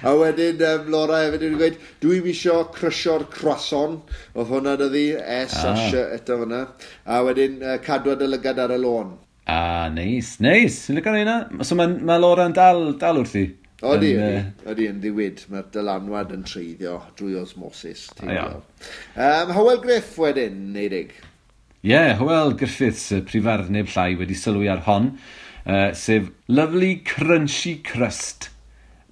A wedyn Laura hefyd wedi gweud, dwi'm isio crysio'r croissant. Oedd hwnna dyddi, S a S eto fyna. A wedyn cadwa dy lygad ar y lôn. Ah, neis, neis. Yn licio hynna. So mae Laura'n dal wrthi? Odi, yn ddiwyd. Mae'r dylanwad yn treiddio drwy osmosis. Hywel Griff wedyn, Neidig. Ie, yeah, Hywel Griffiths, prifardd neb llai, wedi sylwi ar hon, sef Lovely Crunchy Crust,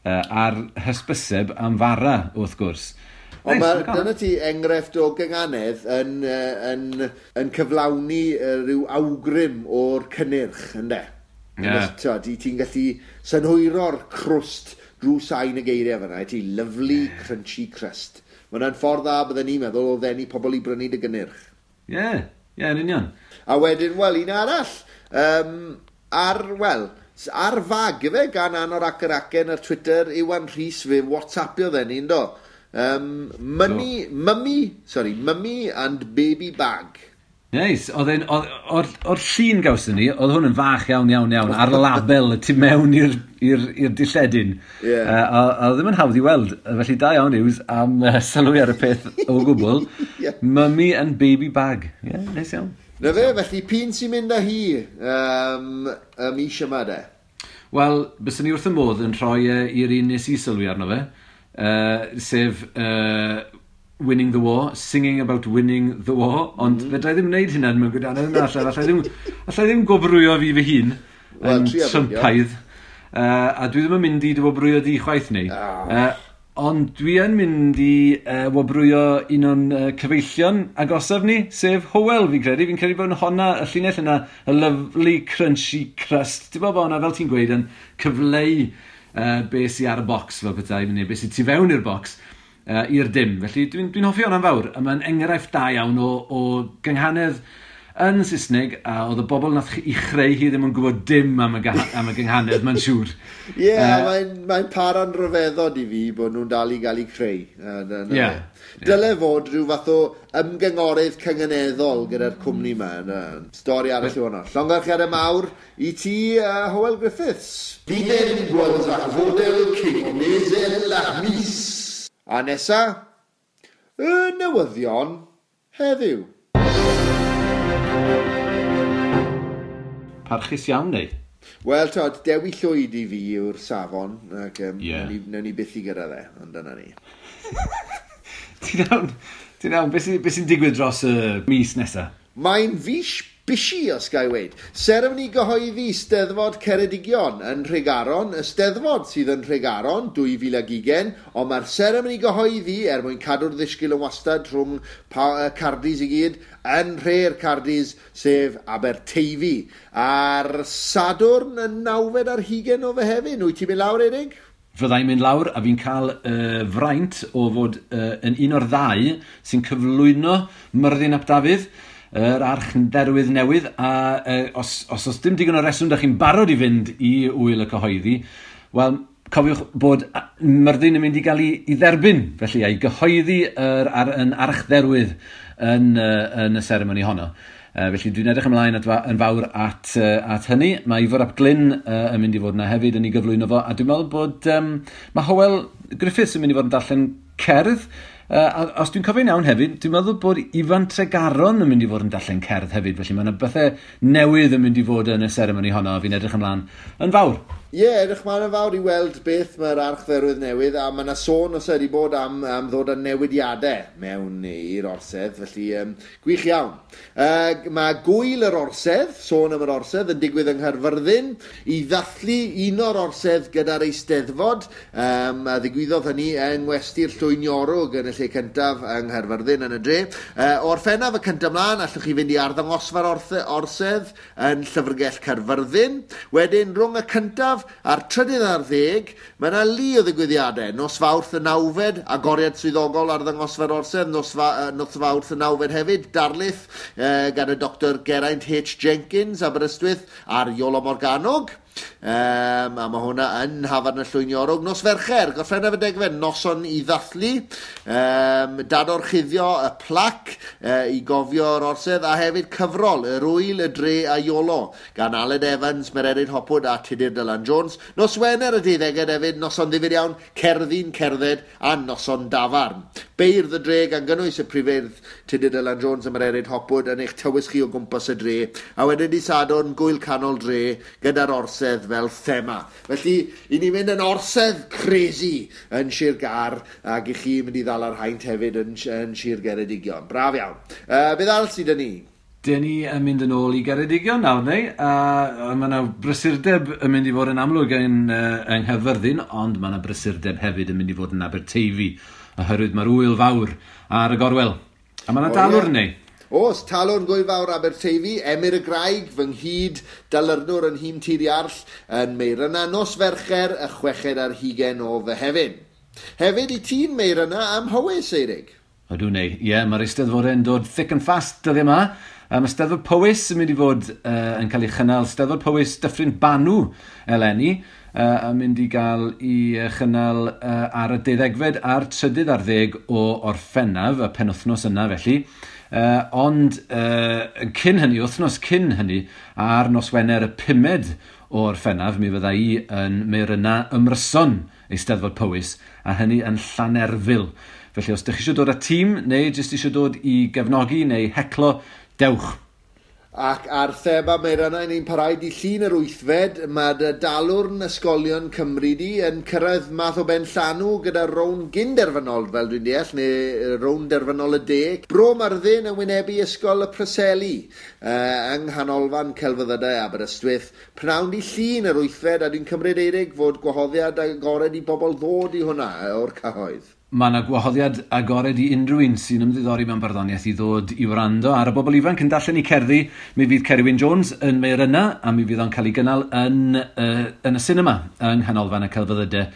ar hysbyseb am fara, wrth gwrs. Ond dyna ti enghraifft o gynganedd yn cyflawni rhyw awgrym o'r cynnyrch, ynde? Yeah. Ti'n gallu synhwyro'r crwst drwy sain y geiriau fyna. Ti lovely crunchy crust. Mae hwnna'n ffordd dda bydden ni'n meddwl o ddenu pobl i brynu dy gynnyrch. Ie, yn union. A wedyn, wel, un arall. Ar fag efe gan Anorak yr Acen ar Twitter, Iwan Rhys fe WhatsAppio dden ni'n do. Mummy and baby bag. Neis, o'r llun gawson ni, oedd hwn yn fach iawn, iawn, iawn, ar label y tu mewn i'r dilledyn. Yeah. A oedd ddim yn hawdd i weld, felly da iawn Hughes am sylwi ar y peth o gwbl. Yeah. Mummy and baby bag. Yeah, neis iawn. Na fe, felly, p'un sy'n mynd â hi y mis yma de? Wel, byswn ni wrth y modd yn rhoi i'r un nes i sylwi arno fe, sef... Winning the War, singing about winning the war, ond fedra i ddim wneud hynna mewn gwirionedd yna, allai ddim gwobrwyo fi fy hun yn Trumpaidd, a dwi ddim yn mynd i dy wobrwyo di chwaith ni. Ond dwi yn mynd i wobrwyo un o'n cyfeillion agosaf ni, sef Hywel, fi'n credu. Fi'n credu bod honna, y llinell yna, y lovely crunchy crust. Ti'n bod honna, fel ti'n gweud, yn cyfleu be sy ar y bocs, fel petai, neu be sy tu fewn i'r bocs, i'r dim. Felly dwi'n hoffi hwnna'n fawr, a mae'n enghraifft da iawn o gynghanedd yn Saesneg, a oedd y bobl nath i chreu hi ddim yn gwybod dim am y gynghanedd, mae'n siŵr. Ie, yeah, mae'n para'n rhyfeddod i fi bod nhw'n dal i gael eu creu. Dyle fod rhyw fath o ymgyngorydd cynganeddol gyda'r cwmni yma. Stori arall yw hwnna. Llongyfarchiadau mawr i ti, Hywel Griffiths. Fi ddim gweld ach fodel cyn ach mis. A nesa, y newyddion heddiw. Parchus iawn, neu? Wel, tod, Dewi Llwyd i fi yw'r safon, ac newn ni byth i gyrraedd e, ond dyna ni. Ti'n iawn, beth sy'n digwydd dros y mis nesaf? Mae'n fis busy, os ga i weud. Seremoni gyhoeddi Steddfod Ceredigion yn Nhregaron, y Steddfod sydd yn Nhregaron 2020, ond mae'r seremoni gyhoeddi er mwyn cadw'r ddisgyl yn wastad rhwng Cardis i gyd, yn nhre'r Cardis, sef Aberteifi. A'r Sadwrn y 29 o Fehefin, wyt ti'n mynd lawr, Erig? Fyddai'n mynd lawr a fi'n cael fraint o fod yn un o'r ddau sy'n cyflwyno Myrddin ap Dafydd, yr archdderwydd newydd, a os oes dim digon o reswm da chi'n barod i fynd i wyl y cyhoeddi, wel, cofiwch bod Myrddin yn mynd i gael ei dderbyn, felly, a'i gyhoeddi yn archdderwydd yn y seremoni honno. Felly dwi'n edrych ymlaen yn fawr at hynny. Mae Ifor ap Glyn yn mynd i fod yna hefyd yn ei gyflwyno fo, a dwi'n meddwl bod mae Hywel Griffiths yn mynd i fod yn darllen cerdd. A os dwi'n cofio'n iawn hefyd, dwi'n meddwl bod Ifan Tregaron yn mynd i fod yn darllen cerdd hefyd, felly mae yna bethau newydd yn mynd i fod yn y seremoni honno, a fi'n edrych ymlaen yn fawr. Ie, edrych ymlaen yn fawr i weld beth mae'r archdderwydd newydd, a mae yna sôn os ydy bod am ddod â newidiadau mewn i'r orsedd, felly gwych iawn. Mae gwyl yr orsedd, sôn am yr orsedd, yn digwydd yng Nghaerfyrddin i ddathlu un o'r orsedd gyda'r Eisteddfod, a ddigwyddodd hynny yng Ngwesty'r Llwyniorwg yn y lle cyntaf yng Nghaerfyrddin yn y dre. O'r Orffennaf y cyntaf mlaen, allwch chi fynd i arddangosfa'r orsedd yn Llyfrgell Caerfyrddin. Wedyn, rhwng y cyntaf a'r 13 ar 10, mae yna lu o ddigwyddiadau. Nos Fawrth y 9fed, agoriad swyddogol arddangosfa'r orsedd, nos Fawrth y 9fed hefyd, darlith gan y Dr Geraint H. Jenkins, Aberystwyth, a'r Iolo Morganwg. A mae hwnna yn Hafan y Llwyniorwg. Nos Fercher, Gorffennaf y 10fed, noson i ddathlu, dadorchuddio y plac i gofio'r orsedd, a hefyd cyfrol, yr Wyl, y Dre a Iolo, gan Aled Evans, Mererid Hopwood a Tudur Dylan Jones. Nos Wener y 12fed hefyd, noson ddifyr iawn, cerddi'n cerdded a noson dafarn. Beirdd y dre gan gynnwys y prifeirdd Tudur Dylan Jones a Mererid Hopwood yn eich tywys chi o gwmpas y dre, a wedyn di Sadwrn, gwyl canol dre gyda'r orsedd fel thema. Felly, i ni mynd yn orsedd crazy yn Sir Gâr, ac i chi mynd i ddal ar haint hefyd yn Sir Geredigion. Braf iawn. Beth arall sydd 'da ni? Dyn ni yn mynd yn ôl i Geredigion nawr, neu? A mae yna brysurdeb yn mynd i fod yn amlwg yng Nghaerfyrddin, ond mae yna brysurdeb hefyd yn mynd i fod yn Aberteifi, oherwydd mae'r wyl fawr ar y gorwel. A mae yna dalwrn, neu? Oes, talwrn gwyl fawr Aberteifi, Emyr y Graig, fy nghyd dalyrnwr yn nhîm Tir Iarll yn Meiryna, nos Fercher, y 26 o Fehefin. Hefyd i ti'n Meiryna am Howys, Eirig. Ydw, neu. Ie, mae'r Eisteddfodau'n dod thick and fast dyddiau yma. Mae Steddfod Powys yn mynd i fod yn cael ei chynnal, Steddfod Powys Dyffryn Banw eleni, yn mynd i gael ei chynnal ar y 12fed a'r 13 o Orffennaf, y penwythnos yna felly. Ond cyn hynny, wythnos cyn hynny, ar nos Wener y 5fed o Orffennaf, mi fydda i yn Meiryna Ymryson Eisteddfod Powys, a hynny yn Llanerfyl. Felly os ydych chi eisiau dod â tîm, neu jyst eisiau dod i gefnogi neu heclo, dewch. Ac ar thema Meirynau ni'n parhau di llun yr 8fed, mae dy dalwrn ysgolion Cymru di yn cyrraedd math o ben llanw gyda rown gynderfynol, fel dwi'n deall, neu rown derfynol y de. Bro Myrddin yn wynebu Ysgol y Preseli yng Nghanolfan Celfyddydau Aberystwyth. Pnawn di llun yr 8fed, a dwi'n cymryd Eirig fod gwahoddiad agored i bobl ddod i hwnna o'r cyhoedd. Mae yna gwahoddiad agored i unrhyw un sy'n ymddiddori mewn barddoniaeth i ddod i wrando ar y bobl ifanc yn darllen eu cerddi. Mi fydd Ceri Wyn Jones yn Meirynau a mi fydd o'n cael ei gynnal yn y sinema yng Nghanolfan y Celfyddydau.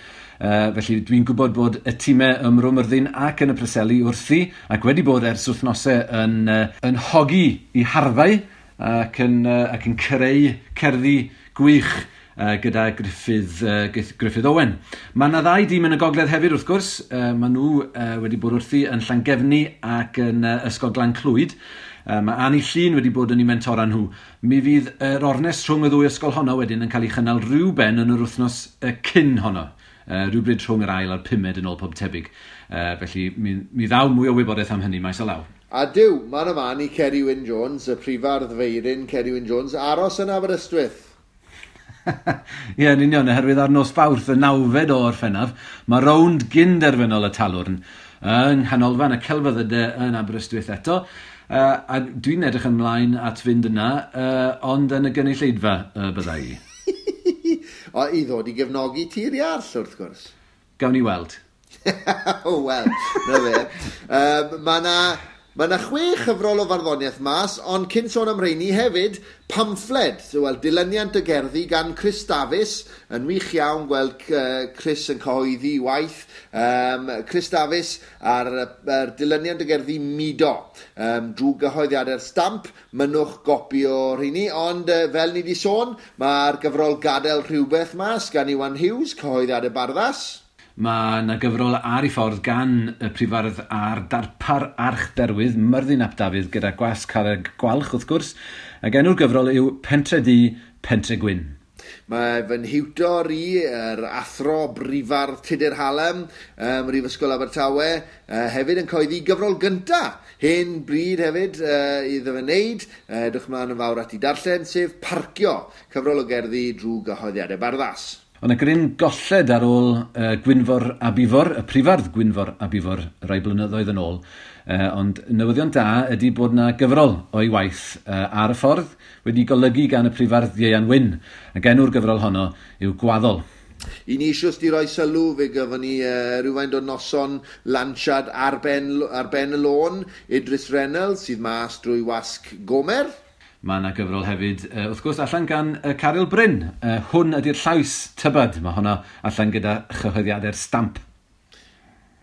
Felly dwi'n gwybod bod y tîmau ym Mro Myrddin ac yn y Preseli wrthi ac wedi bod ers wythnosau yn hogi i harfau ac yn creu cerddi gwych gyda Gruffydd Owen. Mae yna ddau dîm yn y gogledd hefyd wrth gwrs. Mae nhw wedi bod wrthi yn Llangefni ac yn Ysgol Glan Clwyd. Mae Annie Llun wedi bod yn eu mentora nhw. Mi fydd yr ornest rhwng y ddwy ysgol honno wedyn yn cael ei chynnal rhyw ben yn yr wythnos cyn honno. Rhywbryd rhwng yr ail a'r pumed yn ôl pob tebyg. Felly mi ddaw mwy o wybodaeth am hynny maes o law. A diw, man y man i Ceri Wyn Jones, y prifardd feirin Ceri Wyn Jones, aros yn Aberystwyth. Ie, yn union, oherwydd ar nos Fawrth y 9fed o Orffennaf, mae rownd gynderfynol y Talwrn yng Nghanolfan y Celfyddydau yn Aberystwyth eto. A dwi'n edrych ymlaen at fynd yna, ond yn y gynulleidfa bydda i. O, i ddod i gefnogi Tir Iarll, wrth gwrs. Gawn ni weld. Wel, na fe. Mae yna 6 chyfrol o farddoniaeth mas, ond cyn sôn am rheini hefyd, pamffled, wel, dilyniant y gerddi gan Chris Davies, yn wych iawn gweld Chris yn cyhoeddi waith. Chris Davies ar dilyniant y gerddi Mudo, drwy gyhoeddiadau'r Stamp, mynnwch gopi o rheini, ond fel ni wedi sôn, mae'r gyfrol Gadael Rhywbeth mas gan Iwan Hughes, cyhoeddiadau Barddas. Mae yna gyfrol ar ei ffordd gan y prifardd a'r darpar archdderwydd Myrddin ap Dafydd gyda gwasg Carreg Gwalch wrth gwrs, ac enw'r gyfrol yw Pentre Du, Pentre Gwyn. Mae fy nhiwtor i, yr athro brifardd Tudur Hallam, Mhrifysgol Abertawe, hefyd yn cyhoeddi gyfrol gynta, hen bryd hefyd iddo fe wneud, edrych mlaen yn fawr at ei darllen, sef Parcio, cyfrol o gerddi drwy gyhoeddiadau Barddas. Ond y gryn golled ar ôl Gwynfor ab Ifor, y prifardd Gwynfor ab Ifor, rai blynyddoedd yn ôl. Ond newyddion da ydy bod yna gyfrol o'i waith ar y ffordd wedi golygu gan y prifardd Ieuan Wyn. Ac enw'r gyfrol honno yw Gwaddol. I ni eisiau di roi sylw, fe gyfon ni rhywfaint o noson lansiad ar ben y lôn, Idris Reynolds sydd mas drwy wasg Gomer. Mae yna gyfrol hefyd, wrth gwrs, allan gan Caryl Bryn. Hwn ydy'r llais tybed. Mae hwnna allan gyda chyhoeddiadau'r Stamp.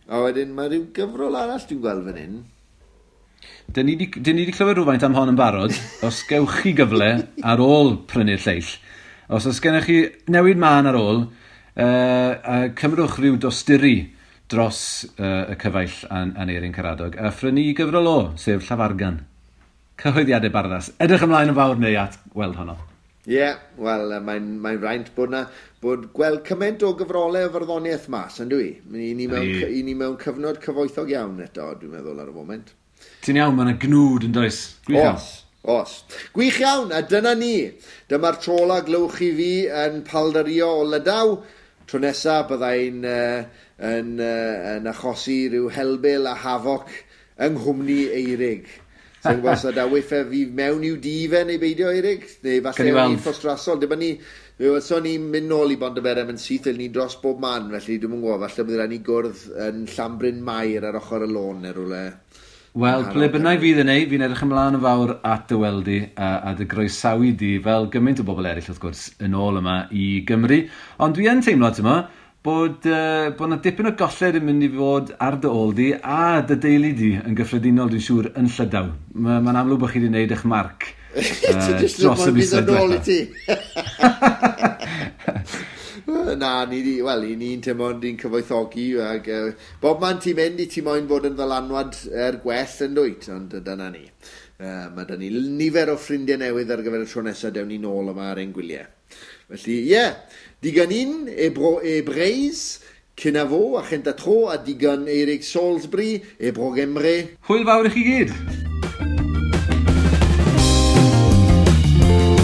A wedyn mae rhyw gyfrol arall dwi'n gweld fan hyn. Dyn ni di clywed rhywfaint am hon yn barod. Os gewch chi gyfle ar ôl prynu'r lleill, os oes gennych chi newid mân ar ôl, cymrwch rhyw dosturi dros y cyfaill Aneirin Karadog a phrynu gyfrol o, sef Llafargan. Cyhoeddiadau Barddas. Edrych ymlaen yn fawr neu at weld honno. Ie, yeah, wel, mae'n fraint bod gweld cymaint o gyfrolau o farddoniaeth mas, yn dwi? I ni mewn cyfnod cyfoethog iawn eto, dwi'n meddwl, ar y foment. Ti'n iawn, mae yna gnwd yn does. Gwych iawn. Os. Gwych iawn, a dyna ni. Dyma'r tro ola glywch chi fi yn paldario o Lydaw. Tro nesa byddai'n yn achosi rhyw helbul a hafoc yng nghwmni Eirig. Sa'n gwybod os yda wyth fi mewn i'w dŷ fe neu beidio, Eirig? Neu falle o'n i'n ffostrasol. Dyma ni, fe welson ni'n mynd nôl i Bontyberem yn syth, ni dros bob man, felly dwi'm yn gwybod, falle bydd rhaid ni gwrdd yn Llanbryn Mair ar ochr y lôn neu rhywle. Wel, ble bynnag fydd yn ei, fi'n edrych ymlaen yn fawr at dy weld di a dy groesawu di, fel gymaint o bobl eraill wrth gwrs, yn ôl yma i Gymru. Ond dwi yn teimlo, ti'n mo, bod yna dipyn o golled yn mynd i fod ar dy ôl di a dy deulu di yn gyffredinol, dwi'n siŵr, yn Llydaw. Mae'n amlwg bod chi wedi gwneud eich marc dros y misoedd diwetha. Na, wel, i ni'n teimlo ni'n cyfoethogi ac bob man ti'n mynd i ti moyn fod yn ddylanwad er gwell yn dwyt, ond dyna ni. Mae 'da ni nifer o ffrindiau newydd ar gyfer y tro nesaf, dewn ni nôl yma ar ein gwyliau. Felly, ie, yeah, digon un e bro e Breizh, kenavo a chenta tro, a digon Eirig Salisbury e bro Gemre. Hwyl fawr i chi gyd! Tara.